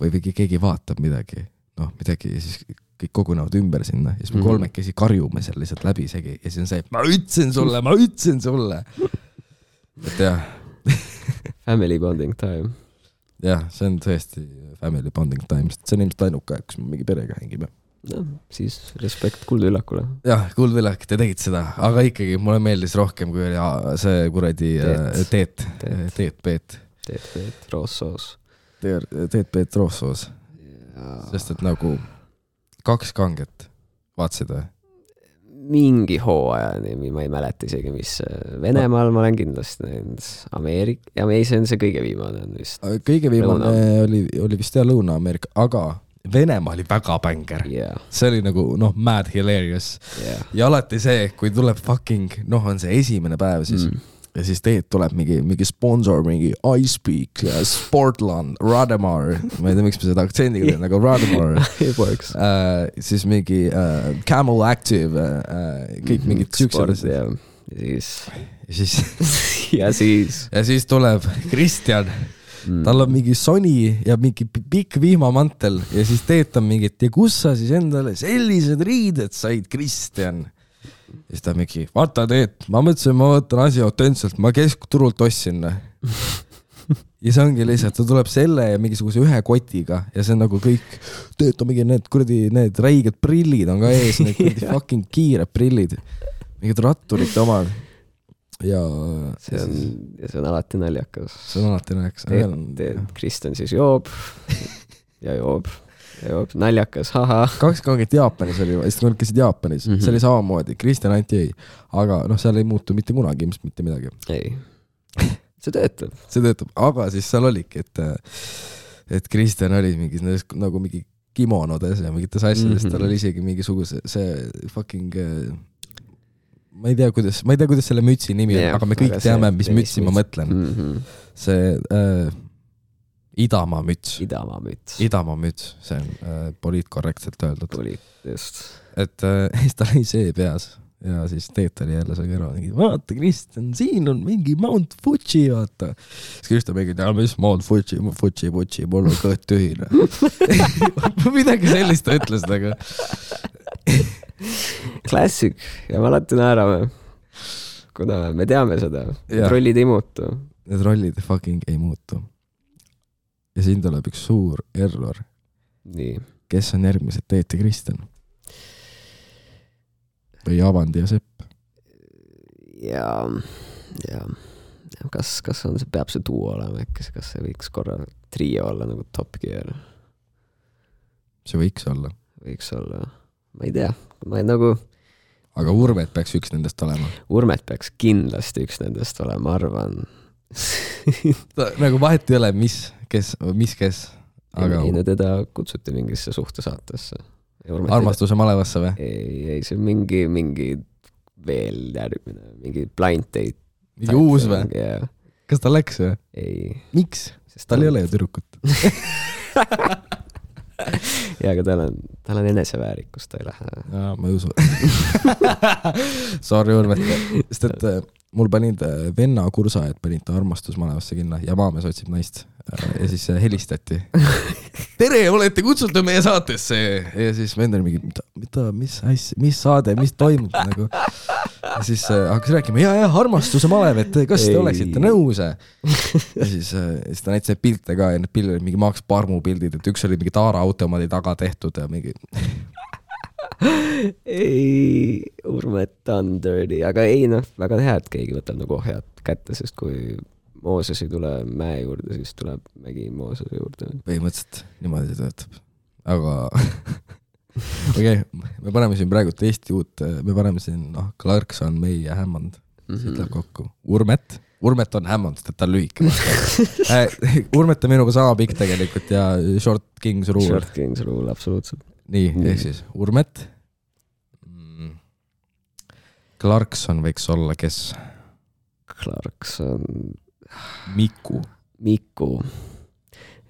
või keegi vaatab midagi ja siis kõik kogunevad ümber sinna ja siis me kolmekesi karjume seal lihtsalt läbi isegi ja siis on see, ma ütlesin sulle. Et jah. Family bonding time. Jah, see on tõesti family bonding time. See on ilmselt ainuke aeg, kus me mingi perega hängime. No, siis respekt Kuldvillakule. Jah, Kuldvillak, te tegid seda. Aga ikkagi mulle meeldis rohkem, kui oli see kuradi Teet Roossoos. Teet Roossoos. Sest et nagu 2 kanget vaatasid või? Mingi hooajani, ma ei mäleta isegi, mis Venemaal ma olen kindlasti näinud. Ja see on see kõige viimane on vist. Kõige viimane oli vist Lõuna-Ameerika, aga Venemaa oli väga bänger. See oli nagu, mad hilarious. Ja alati see, kui tuleb fucking, on see esimene päev siis ja siis Teet tuleb mingi sponsor, mingi iSpeak, Sportland, Rademar, ma ei tea, miks me seda aktsendiga teen, nagu Rademar. siis mingi Camel Active, kõik mingid süksed. ja siis tuleb Kristjan. Tal on mingi soni ja mingi pikk vihmamantel ja siis teetab mingit ja kus sa siis endale sellised riided said, Kristjan? Ja siis ta mingi, vaata Teet, ma mõtlesin, ma võtan asi autentselt, ma keskturult ostsin. Ja see ongi lihtsalt, ta tuleb selle ja mingisuguse ühe kotiga ja see on nagu kõik, Teet on mingi need räiged prillid on ka ees, need fucking kiired prillid, mingid ratturite omad. Ja see on alati naljakas. Kristjan siis joob ja joob. Naljakas, haha. 2 kangit Jaapanis oli, sest nad käisid Jaapanis, see oli samamoodi, Kristjan anti ei, aga seal ei muutu mitte kunagi ilmselt mitte midagi. Ei, see töötab, aga siis seal oligi, et Kristjan oli mingis nagu mingi kimonodes ja mingites asjades, tal oli isegi mingisuguse see fucking ma ei tea, kuidas selle mütsi nimi on, aga me kõik teame, mis mütsi ma mõtlen. See Idamaa müts, see on poliitkorrektselt öeldud. Et siis tal oli see peas ja siis Teet oli jälle seal kõrval, vaata Kristjan, siin on mingi Mount Fuji, vaata. Siis Kristjan mingi, mis Mount Fuji, mul on kõht tühine. Midagi sellist ta ütles nagu. Klassik ja me alati naerame, kuna me teame seda, need rollid ei muutu. Need rollid fucking ei muutu. Ja siin tuleb üks suur error. Nii. Kes on järgmised Teet ja Kristjan? Või Avandi ja Sepp? Ja kas on see, peab see duo olema äkki, kas see võiks korra trio olla nagu Top Gear? See võiks olla, ma ei tea, aga Urmet peaks üks nendest olema. Urmet peaks kindlasti üks nendest olema, ma arvan. Nagu vahet ei ole, mis kes. Aga... Ei, teda kutsuti mingisse suhtesaatesse. Armastuse malevasse või? Ei, see on mingi veel järgmine, mingi blind date. Mingi uus või? Yeah. Kas ta läks või? Ei. Miks? Sest tal ei ole ju tüdrukut. Ja, aga tal on eneseväärikus, ta ei lähe. Jaa, ma ei usu. Sorry, Urmet. Sest et mul panid venna kursajad, panid ta armastusmalevasse kinna ja maamees otsib naist. Ja siis helistati. Tere, olete kutsutud meie saatesse. Ja siis vend oli mingi, mis saade, mis toimub nagu. Ja siis hakkas rääkima, ja armastuse malev, et kas te oleksite nõus. Ja siis ta näitas pilte ka ja need pildid olid mingi Max Parmu pildid, et üks oli mingi Taara automaadi taga tehtud ja mingi... Ei, Urmet on dirty, aga ei väga hea, et keegi võtab nagu ohjad kätte, sest kui Mooses ei tule mäe juurde, siis tuleb mägi Moosese juurde. Põhimõtteliselt niimoodi töötab. Aga okei, me paneme siin praegu Eesti uut, me paneme siin Clarkson, May ja Hammond. Siit läheb kokku. Urmet on Hammond, sest et ta on lühike. Urmet on minuga sama pikk tegelikult ja Short King's Rule, absoluutselt. Nii, ehk siis Urmet. Clarkson võiks olla kes? Clarkson... Miku.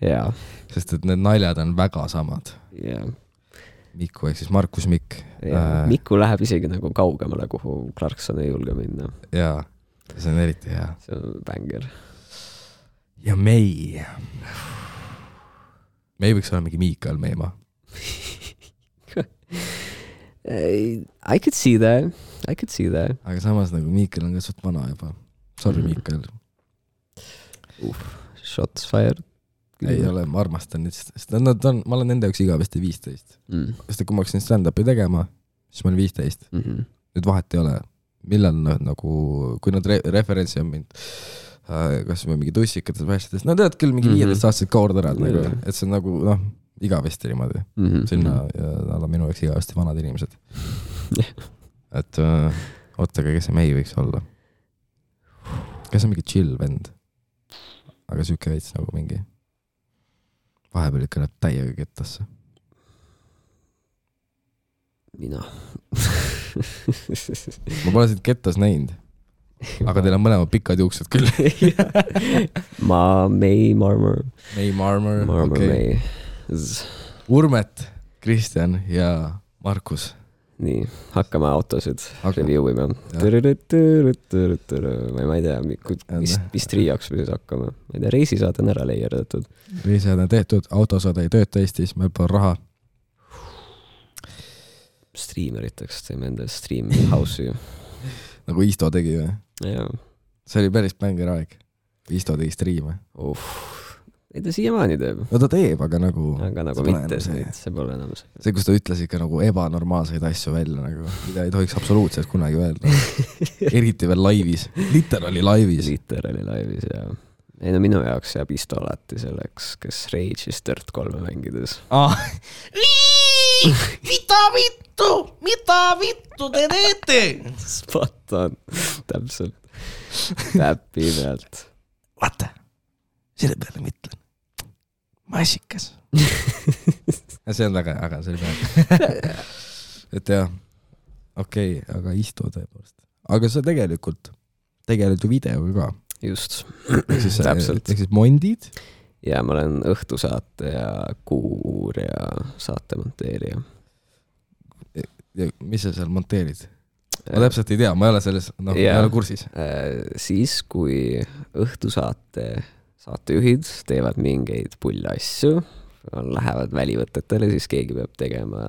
Jaa. Sest et need naljad on väga samad. Jaa. Miku ehk siis Markus Mikk. Miku läheb isegi nagu kaugemale, kuhu Clarkson ei julge minna. Jaa, see on eriti hea. See on banger. Ja May. May võiks olla mingi Miikael Meima. I could see that. Aga samas nagu Miikael on ka suht vana juba. Sorry, Miikael. Shots fired. Ei ole, ma armastan nüüd, sest ma olen nende üks igavesti 15. Sest kui ma hakkasin stand-upi tegema, siis ma olin 15. Nüüd vahet ei ole, millal nagu, kui nad referentsi on mind, kas või mingi tussikates vähestades, nad teavad küll mingi 15-aastased kaord ära, et see on nagu, igavesti niimoodi. Sinna nad on minu jaoks igavesti vanad inimesed. Et ootega, kes see May võiks olla? Kes on mingi chill vend? Aga süüke veits nagu mingi vahepeal ikka näeb täiega kettasse. Mina. Ma pole siit kettas näinud. Aga teil on mõlemad pikad juuksed küll. May Marmor. Okay. Urmet, Kristjan ja Markus. nii, hakkame autosid review ima. Ma ei tea, mis triiaks või siis hakkame. Ma ei tea, reisisaad on ära leierdatud. Reisisaad on tehtud, autosaad ei tööta Eestis, meil pole raha. Streameriteks teeme enda stream house'i. Nagu Isto tegi või? Jaa. See oli päris bänger aeg. Isto tegi streame. Ei ta siiamaani teeb. No ta teeb, aga nagu mitte see pole enam see. See, kus ta ütles ikka nagu ebanormaalseid asju välja, nagu, mida ei tohiks absoluutselt kunagi öelda. Eriti veel laivis. Literally laivis, jaa. Ei no minu jaoks jääb Isto alati selleks, kes Rage'is Dirt 3 mängides. Mida vittu te teete? Spot on, täpselt. Täppi pealt. Vaata, selle peale mõtlen. Massikas. See on väga, aga see oli peal. Et jah, okei, aga Isto tõepoolest. Aga see tegelikult ju videoga ka. Just, täpselt. Ehk siis mondid? Ja ma olen õhtusaate ja kuur ja saate monteerija. Ja mis sa seal monteerid? Ma täpselt ei tea, ma ei ole selles, ei ole kursis. Siis, kui õhtusaate saatejuhid teevad mingeid pulle asju, lähevad välivõtetele, siis keegi peab tegema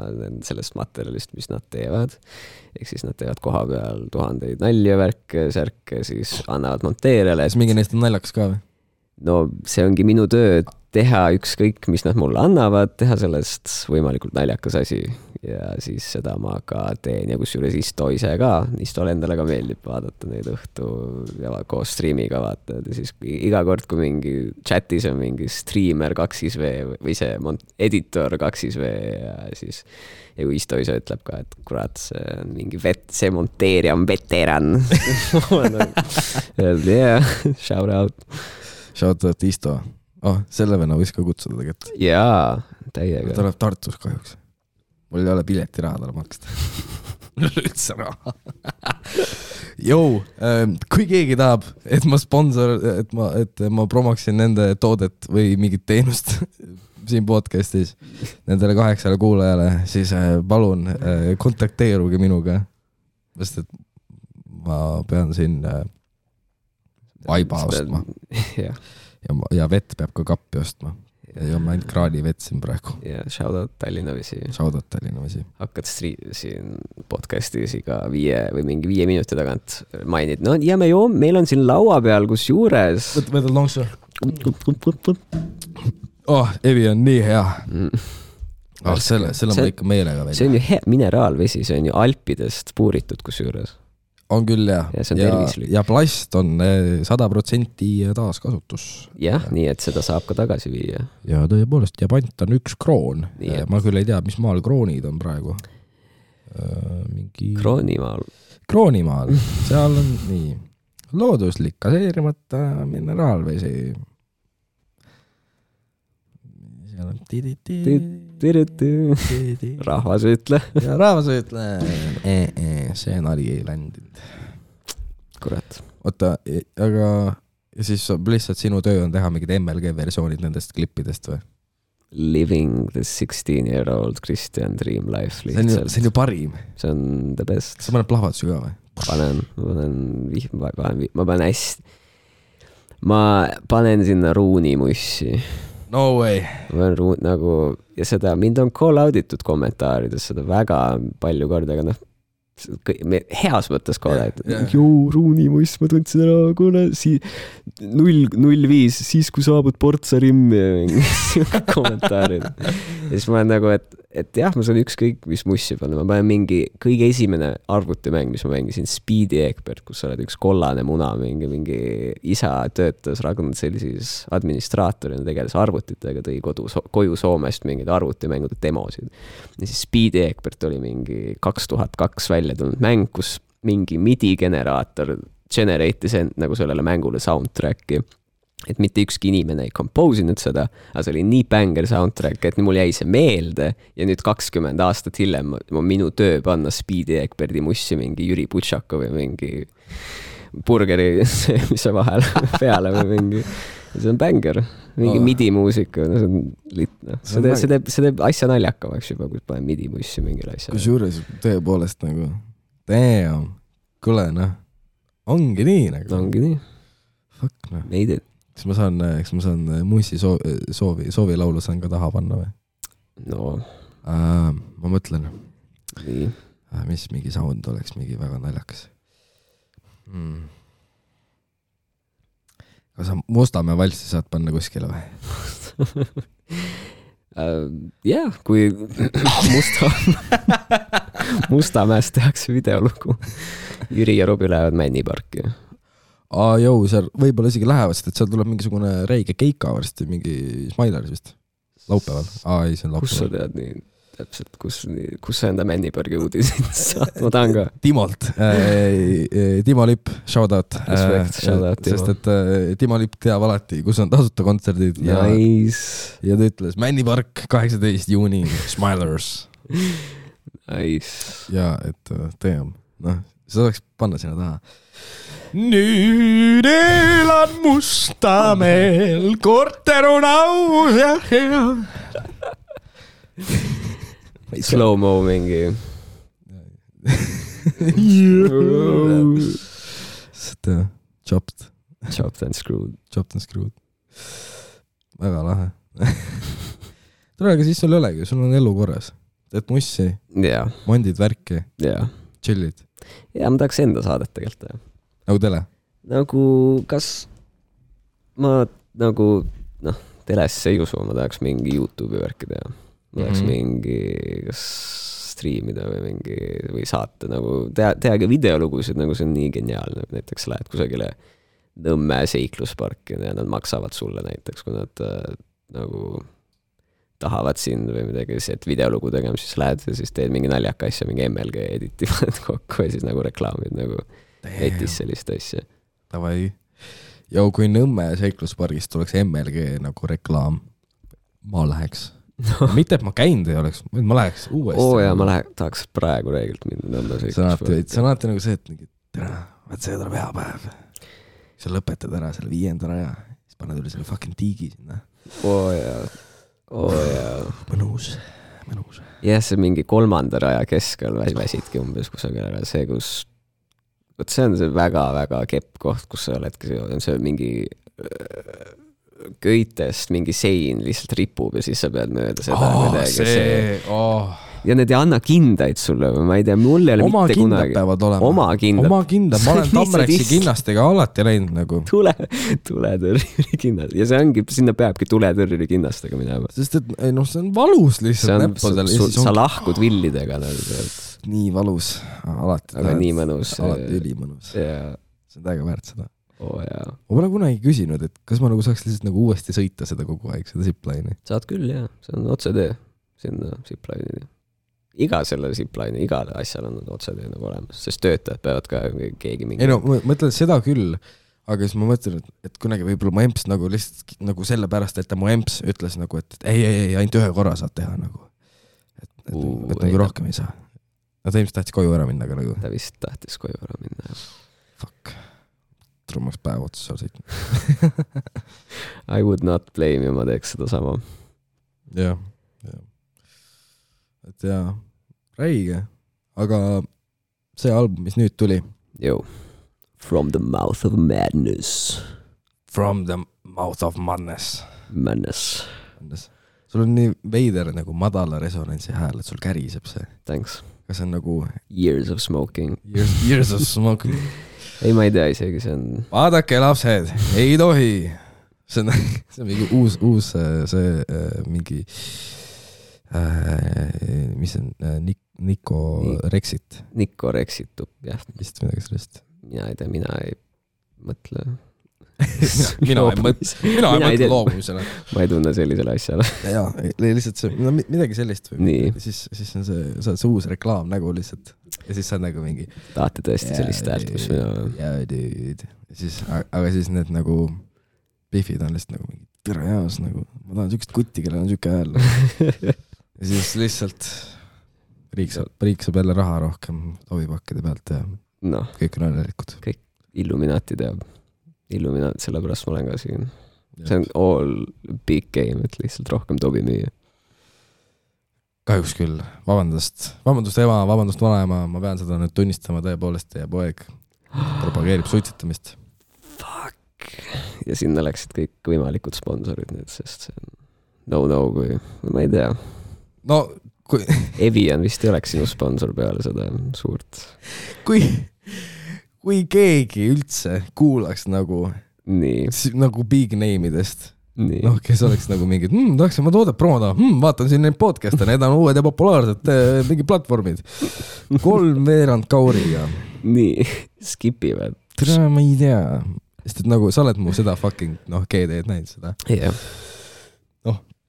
sellest materjalist, mis nad teevad. Ehk siis nad teevad koha peal 1000 nalja värke, särke, siis annavad monteerijale. Kas mingi neist on naljakas ka või? No see ongi minu töö teha ükskõik, mis nad mulle annavad, teha sellest võimalikult naljakas asi. Ja siis seda ma ka teen ja kusjuures Isto ise ka. Istole endale ka meeldib vaadata neid õhtu ja koos streamiga vaatad. Ja siis iga kord, kui mingi chatis on mingi streamer 2V või see editor 2V ja siis ja kui Isto ise ütleb ka, et kurat, see on mingi see monteerija on veteran. Yeah, shout out. Shout out Isto. Selle venna võis ka kutsuda tegelikult. Jaa, täiega. Ta läheb Tartus kahjuks. Mul ei ole piletiraha talle maksta. Üldse raha. Jou, kui keegi tahab, et ma promoksin nende toodet või mingit teenust siin podcastis nendele 8 kuulajale, siis palun kontakteeruge minuga. Sest et ma pean siin vaiba ostma. Ja vett peab ka kappi ostma. Ja ma ainult kraani vetsin praegu. Ja shoutout Tallinna Vesi. Shoutout Tallinna Vesi. Hakkad siin podcastis iga 5 või mingi 5 minuti tagant mainid. No ja meil on siin laua peal, kus juures. Võta lonksu. Evi on nii hea. Selle ma ikka meelega välja. See on ju hea mineraalvesi, see on ju Alpidest puuritud kus juures. On küll jah. Ja see on tervislik. Ja plast on 100% taaskasutus. Jah, nii et seda saab ka tagasi viia. Ja tõepoolest, ja pant on 1 kroon. Ma küll ei tea, mis maal kroonid on praegu. Kroonimaal. Seal on nii looduslik, gaseerimata mineraalvesi. Seal on rahvas ütle. Ja rahvas ütle. See nali ei ländinud. Kurat. Oota, aga ja siis lihtsalt sinu töö on teha mingid MLG versioonid nendest klippidest või? Living the 16-year-old Christian dream life lihtsalt. See on ju parim. See on the best. Sa paned plahvatusi ka või? Ma panen sinna ruunimussi. No way. Ja seda, mind on call autitud kommentaarides seda väga palju korda, aga heas mõttes call autitud. Joo, ruunimuss, ma tundsin ära, kuule, 005, siis kui saabud Portsa rimmi ja mingi kommentaarid. Ja siis ma olen nagu, et jah, ma saan ükskõik, mis mussi panna. Ma panen mingi kõige esimene arvutimäng, mis ma mängisin, Speedy Egbert, kus sa oled üks kollane muna, mingi isa töötas Ragnar-Sellisis administraatorina, tegeles arvutitega, tõi koju Soomest mingid arvutimängude demosid. Ja siis Speedy Egbert oli mingi 2002 välja tulnud mäng, kus mingi MIDI-generaator generate'is nagu sellele mängule soundtracki. Et mitte ükski inimene ei compose'inud seda, aga see oli nii banger soundtrack, et mul jäi see meelde ja nüüd 20 aastat hiljem minu töö panna Speedy Egberti mussi mingi Jüri Butšakov või mingi burgeri, mis see vahel peale või mingi. See on banger. mingi midi-muusika, no see on litne. See teeb asja naljakamaks juba, kui panen midi-mussi mingile asjale. Kusjuures tõepoolest nagu, damn, kuule noh, ongi nii nagu. Ongi nii. Fuck noh. Made it. Kas ma saan mussi soovi laulu saan ka taha panna või? No. Ma mõtlen. Nii. Mis mingi sound oleks mingi väga naljakas. Kas sa Mustamäe valsi saad panna kuskile või? Jah, kui Mustamäest tehakse videolugu. Jüri ja Robi lähevad Männiparki. Jõu, seal võib-olla isegi lähevad, sest et seal tuleb mingisugune räige keika varsti, mingi Smileris vist. Laupäeval. Ei, see on laupäeval. Kus sa tead nii täpselt, kus sa enda Männipargi uudisid saad? Ma tahan ka. Timolt. Timo Lipp, shout out. Shout out, Timo. Sest et Timo Lipp teab alati, kus on tasuta kontserdid. Nice. Ja ta ütles Männipark 18 juuni, Smilers. Nice. Ja, et team. Noh, see oleks panna sinna taha. Nüüd elan Mustamäel, korter on aus ja hea. Slow-mo mingi. Chopped and screwed. Väga lahe. Tule, aga siis sul ei olegi, sul on elu korras. Teed mussi, mondid värki, chillid. Ja ma tahaks enda saadet tegelikult. Nagu tele? Nagu, kas ma nagu, telesse ei usu, ma tahaks mingi YouTube'i värki teha. Ma tahaks mingi, kas striimida või saate, nagu tehagi videolugusid, nagu see on nii geniaalne. Näiteks lähed kusagile Nõmme seiklusparki ja nad maksavad sulle näiteks, kui nad nagu tahavad sind või midagi, et videolugu tegema, siis lähed ja siis teed mingi naljaka asja, mingi MLG editivad kokku ja siis nagu reklaamid nagu netis sellist asja. Tavai. Ja kui Nõmme seikluspargist tuleks MLG nagu reklaam, ma läheks. Mitte, et ma käinud ei oleks, ma läheks uuesti. Ja ma tahaks praegu reeglilt minna Nõmme seikluspargi. See on alati nagu see, et see tuleb hea päev. Sa lõpetad ära selle 5. raja, siis paned üle selle fucking tiigi sinna. Mõnus. Jah, see mingi 3. raja keskel väsidki umbes kusagil ära. See, see on see väga-väga kepp koht, kus sa oledki, see mingi köitest mingi sein lihtsalt ripub ja siis sa pead mööda seda. Ja need ei anna kindaid sulle, ma ei tea, mul ei ole mitte kunagi. Peavad olema. Oma kindad. Ma olen Tamreksi kinnastega alati läinud nagu. Tuletõrjuri kinnast. Ja see ongi, sinna peabki tuletõrjuri kinnastega minema. Sest et see on valus lihtsalt näppudel. Sa lahkud villidega. Nii valus. Alati. Aga nii mõnus. Alati ülimõnus. See on täiega väärt seda. Ma pole kunagi küsinud, et kas ma nagu saaks lihtsalt nagu uuesti sõita seda kogu aeg, seda zipline'i. Saad küll, jah. See on otsetee sinna zipline'i. Iga selle zipline'i, igal asjal on otsetee nagu olemas, sest töötajad peavad ka keegi mingi... Ei no, ma mõtlen seda küll, aga siis ma mõtlen, et kunagi võib-olla mu emps nagu lihtsalt nagu selle pärast, et ta mu emps ütles nagu, et ei, ainult ühe korra saad teha nagu. Et nagu rohkem ei saa. Ta ilmselt tahtis koju ära minna, aga nagu... Ta vist tahtis koju ära minna, jah. Fuck. Trummaks päev otsa seal sõitma. I would not blame you, ma teeks seda sama. Jah. Et jaa, räige. Aga see album, mis nüüd tuli. From the Mouth of Madness. From the Mouth of Madness. Madness. Sul on nii veider nagu madala resonantsi hääl, et sul käriseb see. Thanks. Kas see on nagu... Years of smoking. Years of smoking. Ei, ma ei tea isegi, see on... Vaadake lapsed, ei tohi. See on mingi uus mingi... mis on Nico Rexit. Nico Rexit, jah. Vist midagi sellest. Mina ei tea, mina ei mõtle. Mina ei mõtle loomumisele. Ma ei tunne sellisele asjale. Jaa, lihtsalt see, midagi sellist või siis on see uus reklaam nägu lihtsalt ja siis sa on nagu mingi tahate tõesti sellist häält, mis mina... Jaa, dude. Aga siis need nagu Biffid on lihtsalt nagu mingi tere jaas nagu, ma tahan sükest kutti, kellel on süke hääl. Ja siis lihtsalt riik saab jälle raha rohkem tovipakkide pealt ja kõik on õnnelikud. Kõik Illuminati teab. Sellepärast ma olen ka siin. see on all big game, et lihtsalt rohkem tobi müüa. Kahjuks küll, vabandust ema, vabandust vanaema, ma pean seda nüüd tunnistama tõepoolest, teie poeg propageerib suitsetamist. Fuck. Ja sinna läksid kõik võimalikud sponsorid nüüd, sest see on no, kui ma ei tea. No, kui Evian vist ei oleks sinu sponsor peale seda suurt. Kui keegi üldse kuulaks nagu big name'idest, noh, kes oleks nagu mingid, tahaks oma toodet promoda, vaatan siin neid podcast'e, need on uued ja populaarsed mingid platvormid. 3 kauriga. Nii, skipivad. Ma ei tea, sest et nagu sa oled mu seda fucking, GD-d näinud seda. Yeah.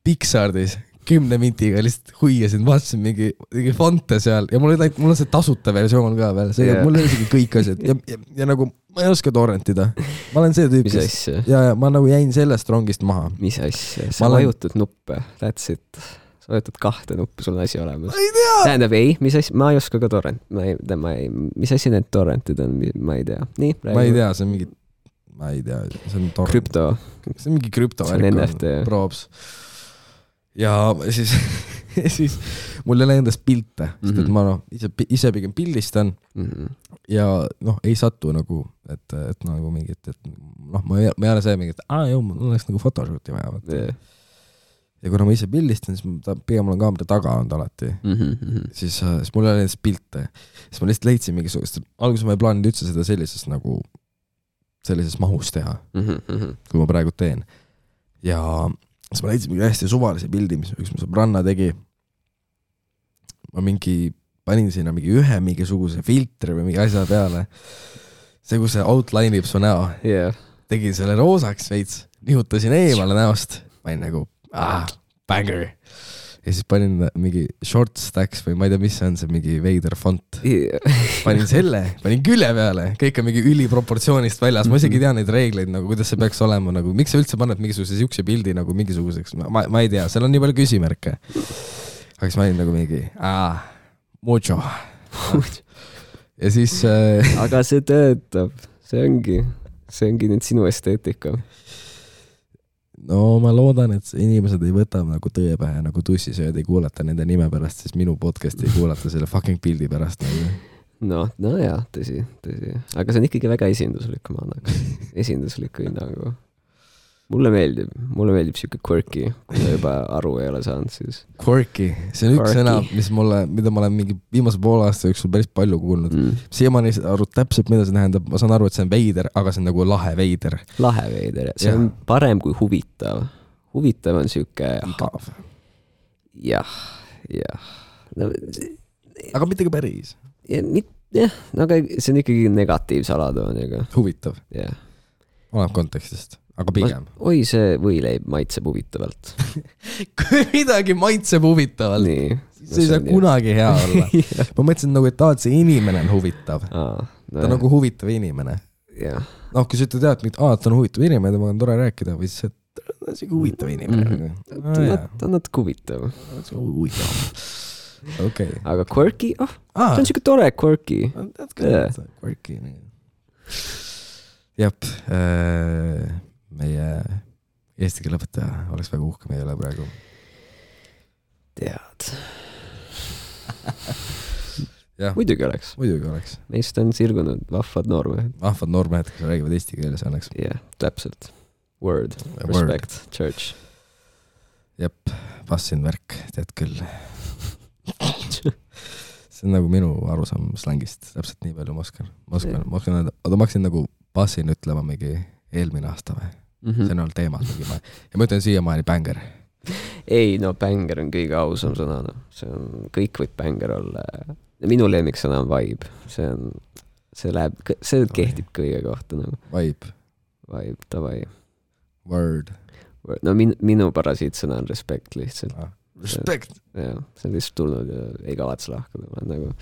Pixardis 10 mintiga lihtsalt huiasin, vaatasin mingi fonte seal ja mul on see tasuta versioon ka veel, mul on isegi kõik asjad ja nagu ma ei oska torrentida. Ma olen see tüüp, mis asja? Ja ma nagu jäin sellest rongist maha. Mis asja? Sa vajutad nuppe, that's it. Sa vajutad 2 nuppu, sul on asi olemas. Ma ei tea! Tähendab, mis asja? Ma ei oska ka torrent. Mis asja need torrentid on? Ma ei tea. Nii, räägi. Ma ei tea, see on mingi, ma ei tea, see on torrent. Krüpto. See on mingi krüpto. See on NFT. Probs. Ja siis mul ei ole endast pilte, sest et ma ise pigem pildistan ja ei satu nagu, et nagu mingit, et ma ei ole see mingi, et mul oleks nagu photoshooti vaja. Ja kuna ma ise pildistan, siis pigem olen kaamera taga olnud alati. Siis mul ei ole endast pilte. Siis ma lihtsalt leidsin mingisugust, alguses ma ei plaaninud üldse seda sellises mahus teha, kui ma praegu teen. Ja siis ma leidsin mingi hästi suvalise pildi, mis üks mu sõbranna tegi. Ma panin sinna mingisuguse filtri või mingi asja peale. See, kui see outline'ib su näo. Yeah. Tegin selle roosaks veits, nihutasin eemale näost. Panin nagu, banger. Ja siis panin mingi short stacks või ma ei tea, mis see on, see mingi veider font. Yeah. Panin külje peale, kõik on mingi üliproportsioonist väljas. Ma isegi tean neid reegleid, nagu, kuidas see peaks olema, nagu, miks sa üldse paned mingisuguse siukse pildi nagu mingisuguseks, ma ei tea, seal on nii palju küsimärke. Aga siis ma olin nagu mingi, mucho. Ja siis aga see töötab, see ongi nüüd sinu esteetika. No ma loodan, et inimesed ei võta nagu tõe pähe, nagu tussisööd ei kuulata nende nime pärast, siis minu podcasti ei kuulata selle fucking pildi pärast. No jah, tõsi. Aga see on ikkagi väga esinduslik, ma annaks. Esindusliku hinnangu. Mulle meeldib siuke quirky, kui ta juba aru ei ole saanud, siis. Quirky, see on üks sõna, mida ma olen mingi viimase poole aasta jooksul päris palju kuulnud. Siiamaani aru täpselt, mida see tähendab. Ma saan aru, et see on veider, aga see on nagu lahe veider. Lahe veider, see on parem kui huvitav. Huvitav on siuke. Igav. Jah. No, aga mitte ka päris. Jah, aga see on ikkagi negatiivse alatooniga. Huvitav. Jah. Oleneb kontekstist. Aga pigem. See võileib maitseb huvitavalt. Kui midagi maitseb huvitavalt, see ei saa kunagi hea olla. Ma mõtlesin nagu, et see inimene on huvitav. Ta on nagu huvitav inimene. Kui sa ütled, et ta on huvitav inimene, temaga on tore rääkida, või siis ta on siuke huvitav inimene. Ta on natuke huvitav. Aga quirky? Ta on siuke tore quirky. Quirky. Jep, meie eesti keele õpetaja oleks väga uhke meie üle praegu. Tead. Muidugi oleks. Meist on sirgunud vahvad noormehed. Kes räägivad eesti keeles õnneks. Jah, täpselt. Word. Respect. Church. Jep, passin värk, tead küll. See on nagu minu arusaam slängist. Täpselt nii palju ma oskan öelda. Aga ma hakkasin nagu passin ütlema mingi eelmine aasta või? See on olnud teemal mingi ma. Ja ma ütlen siiamaani banger. Ei, banger on kõige ausam sõna. Kõik võib banger olla. Minu lemmiksõna on vibe. See kehtib kõige kohta. Vibe, davai. Word. No minu parasiitsõna on respect lihtsalt. Respect. See on lihtsalt tulnud ja ei kavatse lahkuda. Ma olen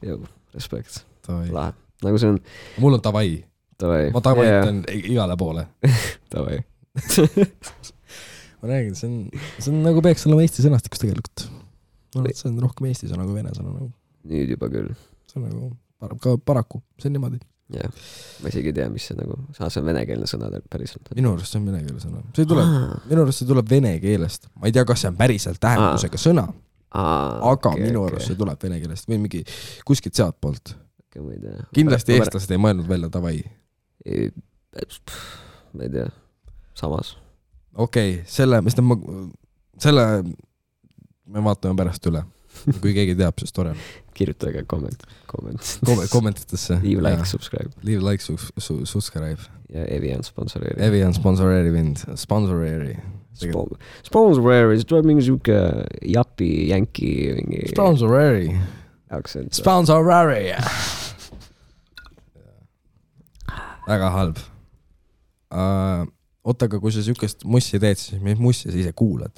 nagu, respect. Lahe. Nagu see on. Mul on tavai. Ma tavaitan igale poole. Tavai. Ma räägin, see on nagu peaks olema eesti sõnastikus tegelikult. See on rohkem eesti sõna kui vene sõna. Nüüd juba küll. See on nagu paraku, see on niimoodi. jah, ma isegi ei tea, mis see nagu, see on venekeelne sõna päriselt. Minu arust see on venekeelne sõna. Minu arust see tuleb vene keelest. Ma ei tea, kas see on päriselt tähendusega sõna, aga minu arust see tuleb vene keelest või mingi kuskilt sealt poolt. Kindlasti eestlased ei mõelnud välja tavai. Ma ei tea, samas. Okei, selle me vaatame pärast üle. Kui keegi teab, siis tore. Kirjutage kommentitesse. Leave like, subscribe. Leave like, subscribe. Ja Evian sponsoreeri. Evian sponsoreeri mind. Sponsoreeri. Sponsoreeri, see tuleb mingi siuke japi, jänki. Sponsoreeri. Sponsoreeri. Väga halb. Oota, aga kui sa siukest mussi teed, siis mis mussi sa ise kuulad?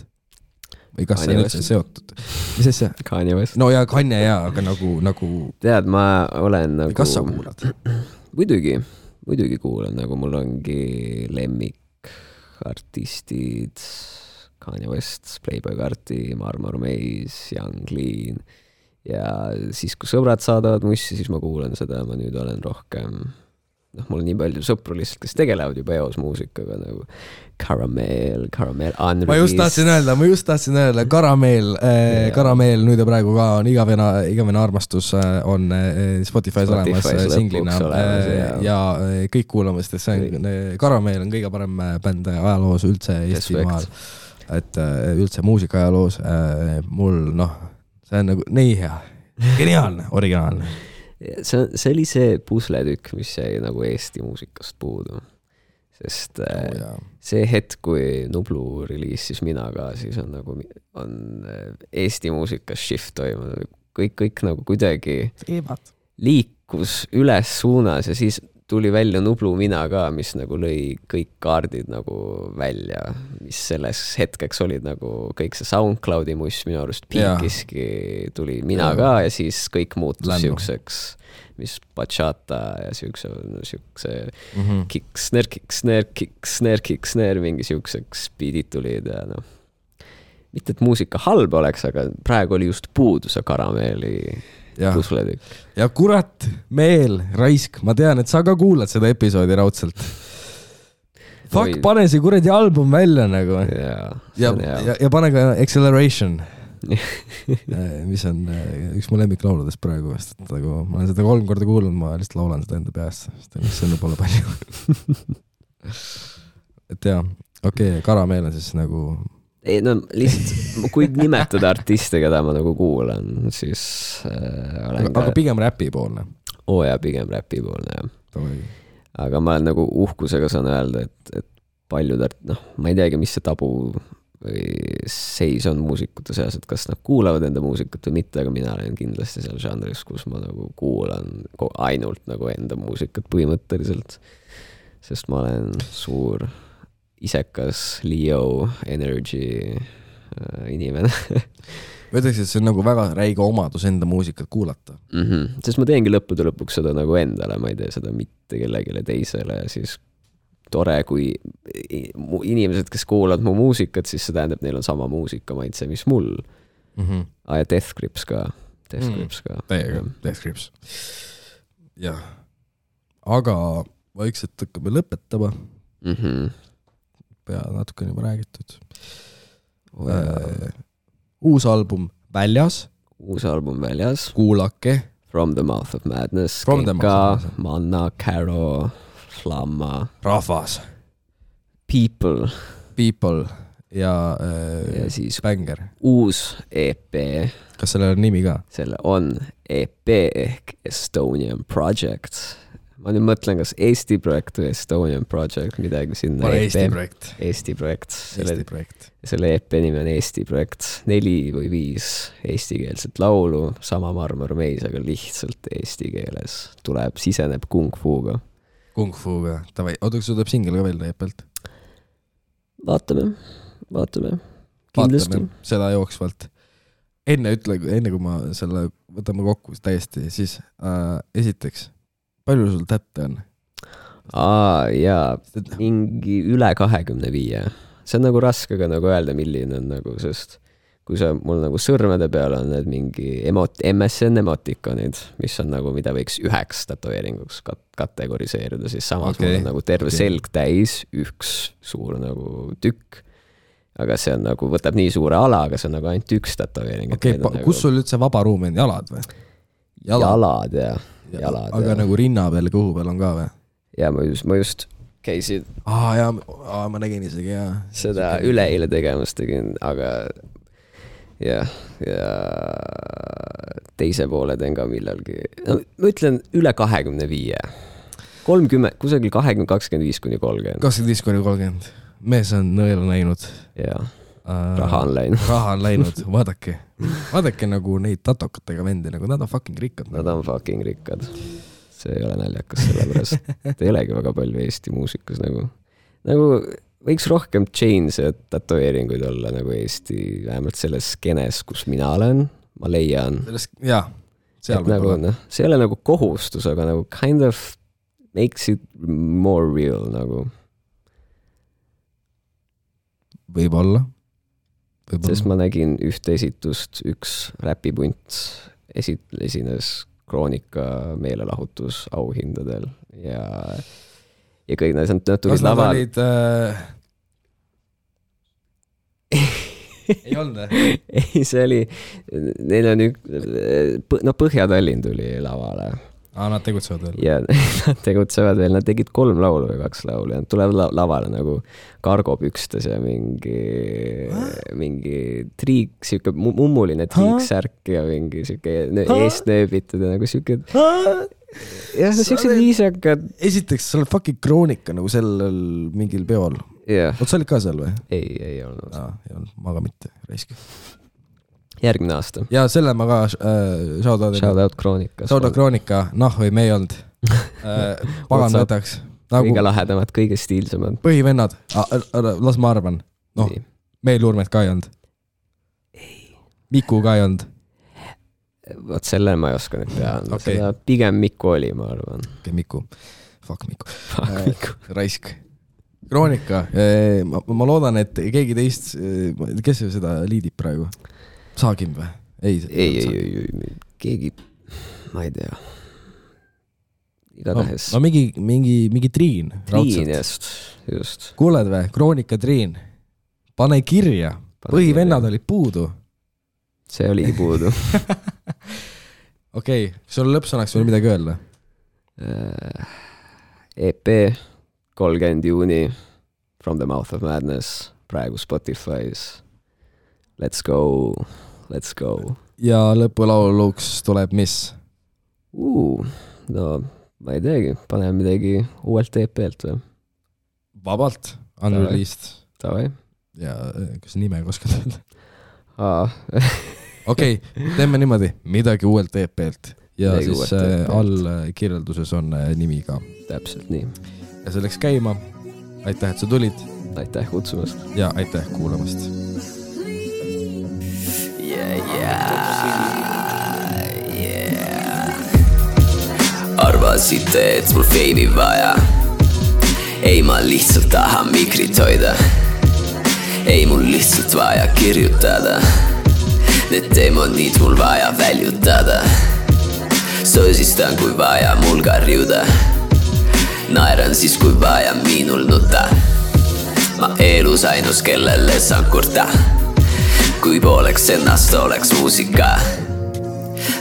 Või kas see on üldse seotud? Mis asja? Kanye West. No ja Kanye jaa, aga nagu... Tead, ma olen nagu... Kas sa kuulad? Muidugi kuulan, nagu mul ongi lemmik artistid, Kanye West, Playboy Carti, Marmor Maze, Young Lean ja siis, kui sõbrad saadavad mussi, siis ma kuulan seda, ma nüüd olen rohkem... mul on nii palju sõpru lihtsalt, kes tegelevad juba eos muusikaga nagu Caramel, Unreleased. Ma just tahtsin öelda, Caramel nüüd ja praegu ka on igavene armastus on Spotify's olemas singlina ja kõik kuulame, sest see on, Caramel on kõige parem bänd ajaloos üldse Eestimaal, et üldse muusika ajaloos mul, see on nagu nii hea, geniaalne, originaalne. See oli see pusletükk, mis jäi nagu Eesti muusikast puudu. Sest see hetk, kui Nublu reliisis Mina ka, siis on nagu Eesti muusikas shift toimunud. Kõik nagu kuidagi liikus üles suunas ja siis tuli välja Nublu Mina ka, mis nagu lõi kõik kaardid nagu välja, mis selles hetkeks olid nagu kõik see SoundCloudi muss minu arust piikiski tuli Mina ka ja siis kõik muutus siukseks, mis bachata ja siukse kick-snare, mingi siukseks beatid tulid ja mitte et muusika halb oleks, aga praegu oli just puudu see Karameeli pusletükk. Ja kurat, Meel, raisk, ma tean, et sa ka kuulad seda episoodi raudselt. Fuck, pane see kuradi album välja nagu. Ja pane ka Acceleration, mis on üks mu lemmiklauludest praegu. Ma olen seda 3 korda kuulnud, ma lihtsalt laulan seda enda peast. See on pole palju. Et jah, okei, Karameel on siis nagu... Ei, lihtsalt, kui nimetada artiste, keda ma nagu kuulan, siis aga pigem räpi poolne. Ja pigem räpi poolne, jah. Aga ma olen nagu uhkusega saan öelda, et paljud, ma ei teagi, mis see tabu või seis on muusikute seas, et kas nad kuulavad enda muusikat või mitte, aga mina olen kindlasti seal žanris, kus ma nagu kuulan ainult nagu enda muusikat põhimõtteliselt, sest ma olen suur isekas Leo Energy inimene. Ma ütleks, et see on nagu väga räige omadus enda muusikat kuulata. Sest ma teengi lõppude lõpuks seda nagu endale, ma ei tee seda mitte kellegile teisele ja siis tore, kui inimesed, kes kuulavad mu muusikat, siis see tähendab, neil on sama muusika maitse, mis mul. Ja Death Grips ka. Death Grips. Jah. Aga vaikselt hakkame lõpetama. Pea natuke on juba räägitud. Uus album väljas. Kuulake. From the Mouth of Madness. Keka, Manna, Caro, Flamma. Rahvas. People ja siis Banger. Uus EP. Kas sellel on nimi ka? Selle on EP ehk Estonian Project. Ma nüüd mõtlen, kas Eesti projekt või Estonian Project, midagi sinna. Eesti projekt. Selle EP nimi on Eesti projekt. 4 või 5 eestikeelset laulu, sama Marmor Maze, aga lihtsalt eesti keeles. Siseneb Kung Fuga. Oota, kas tuleb singel ka veel EP-lt? Vaatame. Kindlasti. Seda jooksvalt. Enne kui ma selle võtame kokku täiesti, siis esiteks palju sul tätte on? Jaa, mingi üle 25. See on nagu raske ka nagu öelda, milline on nagu, sest kui sa mul nagu sõrmede peal on need mingi MSN emotikonid, mis on nagu, mida võiks 9 tätoveeringuks kategoriseerida, siis samas mul on nagu terve selg täis, üks suur nagu tükk, aga see on nagu, võtab nii suure ala, aga see on nagu ainult üks tätoveering. Kus sul üldse vaba ruum on, jalad või? Jalad, jah. Aga nagu rinna peal, kõhu peal on ka või? Ja ma just käisid ma nägin isegi, jah. Seda üleeile tegemas tegin, aga ja teise poole teen ka millalgi. No, ma ütlen üle 25. 30, kusagil 25-30. 25-30. Mees on nõela näinud. Jaa, raha on läinud. Raha on läinud, vaadake nagu neid tatokatega vendi, nagu nad on fucking rikkad. Nad on fucking rikkad. See ei ole naljakas sellepärast. Ei olegi väga palju Eesti muusikas nagu võiks rohkem chains ja tatoveeringuid olla nagu Eesti, vähemalt selles skenes, kus mina olen, ma leian. Jah, seal nagu, see ei ole nagu kohustus, aga nagu kind of makes it more real nagu. Võib-olla. Sest ma nägin ühte esitust, üks räpipunt esines Kroonika meelelahutus auhindadel ja kõik nad tulid laval. Kas nad olid... ei olnud? Ei, see oli... Neil on Põhja-Tallinn tuli lavale. Nad tegutsevad veel? Ja nad tegutsevad veel. Nad tegid 3 laulu või 2 laulu ja nad tulevad lavale nagu kargopükstes ja mingi triik, siuke mummuline triiksärk ja mingi siuke eestnööbitud ja nagu siuke... Ja siuksed viisakad. Esiteks, sa oled fucking Kroonika nagu sellel mingil peol. Oot, sa olid ka seal või? Ei olnud. Ma ka mitte, raisk. Järgmine aasta. Ja selle ma ka shoutout Kroonika. Shoutout Kroonika, või me ei olnud. Pagan võtaks. Kõige lahedamad, kõige stiilsemad. Põhivennad, las ma arvan. Meil Urmet ka ei olnud. Miku ka ei olnud. Võt selle ma ei oska nüüd teha. Seda pigem Miku oli, ma arvan. Miku. Fuck Miku. Raisk. Kroonika. Ma loodan, et keegi teist, kes seda liidib praegu? Saagim või? Ei. Keegi, ma ei tea. Igatahes. No mingi Triin. Triin, just. Kuuled või? Kroonika Triin. Pane kirja. Põhivennad olid puudu. See oligi puudu. Okei, sul lõppsõnaks veel midagi öelda? EP 30 juuni From the Mouth of Madness praegu Spotify's. Let's go. Ja lõpulauluks tuleb mis? No ma ei teagi, paneme midagi uuelt EP-lt või? Vabalt, unreleased. Tavai. Ja kas nime oskad öelda? Okei, teeme niimoodi, midagi uuelt EP-lt ja midagi siis all kirjelduses on nimi ka. Täpselt nii. Ja see läks käima. Aitäh, et sa tulid. Aitäh kutsumast. Ja aitäh kuulamast. Arvasite, et mul feimi vaja. Ei, ma lihtsalt tahan mikrit hoida. Ei, mul lihtsalt vaja kirjutada. Need demonid mul vaja väljutada. Sõsistan, kui vaja mul karjuda. Naeran siis, kui vaja minul nuta. Ma elus ainus, kellele saan kurta. Kui pooleks ennast oleks muusika.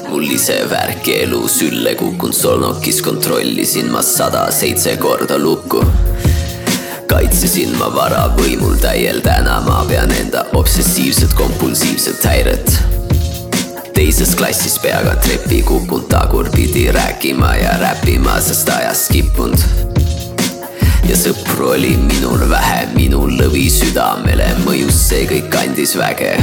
Mul ise värki elu sülle kukun solnokis. Kontrollisin ma 107 korda lukku. Kaitsesin ma vara võimul täiel täna. Ma pean enda obsessiivset kompulsiivset häiret. Teises klassis peaga trepi kukun tagurpidi rääkima ja räppima, sest ajas skippunud. Ja sõpru oli minul vähe, minul lõvi südamele mõjus see kõik andis väge.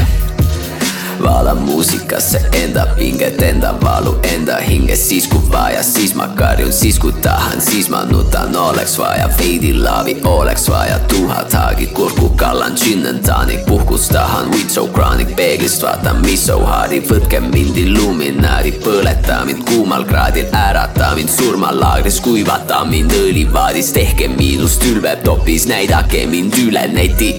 Vaala muusikasse enda pinget, enda valu, enda hinges. Siis kui vaja, siis ma karjun, siis kui tahan, siis ma nutan. Oleks vaja veidi laavi, oleks vaja tuhat haagi. Kurku kallan, gin and tonic, puhkus tahan. Weed so chronic, peeglist vaatan, mis so hardi. Võtke mind illuminaadi, põleta mind kuumal kraadil. Ärata mind surmalaagris, kuivata mind õlivaadis. Tehke miinust ülveb topis, näidake mind üle neti.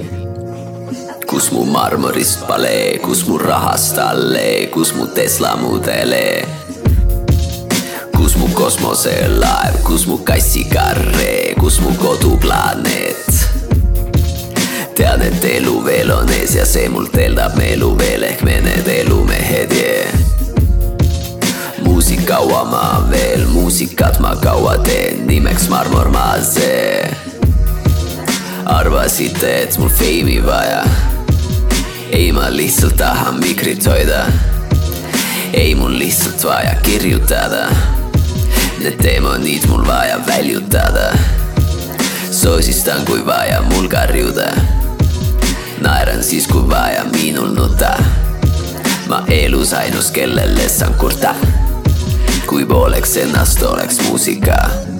kus mu marmorist palee, kus mu rahast allee, kus mu Tesla mudelee, kus mu kosmoselaev, kus mu kassikarree, kus mu koduplaaneet. Tean, et elu veel on ees ja see mult eeldab meelu veel ehk me need elumehed, yeah. Muusik kaua ma veel, muusikat ma kaua teen, nimeks Marmor Maasee. Arvasite, et mul feimi vaja, ei ma lihtsalt tahan mikrit hoida, ei mul lihtsalt vaja kirjutada, need demonid mul vaja väljutada, soosistan kui vaja mul karjuda, naeran siis kui vaja minul nuta, ma elus ainus kellele saan kurta, kui pooleks ennast oleks muusika.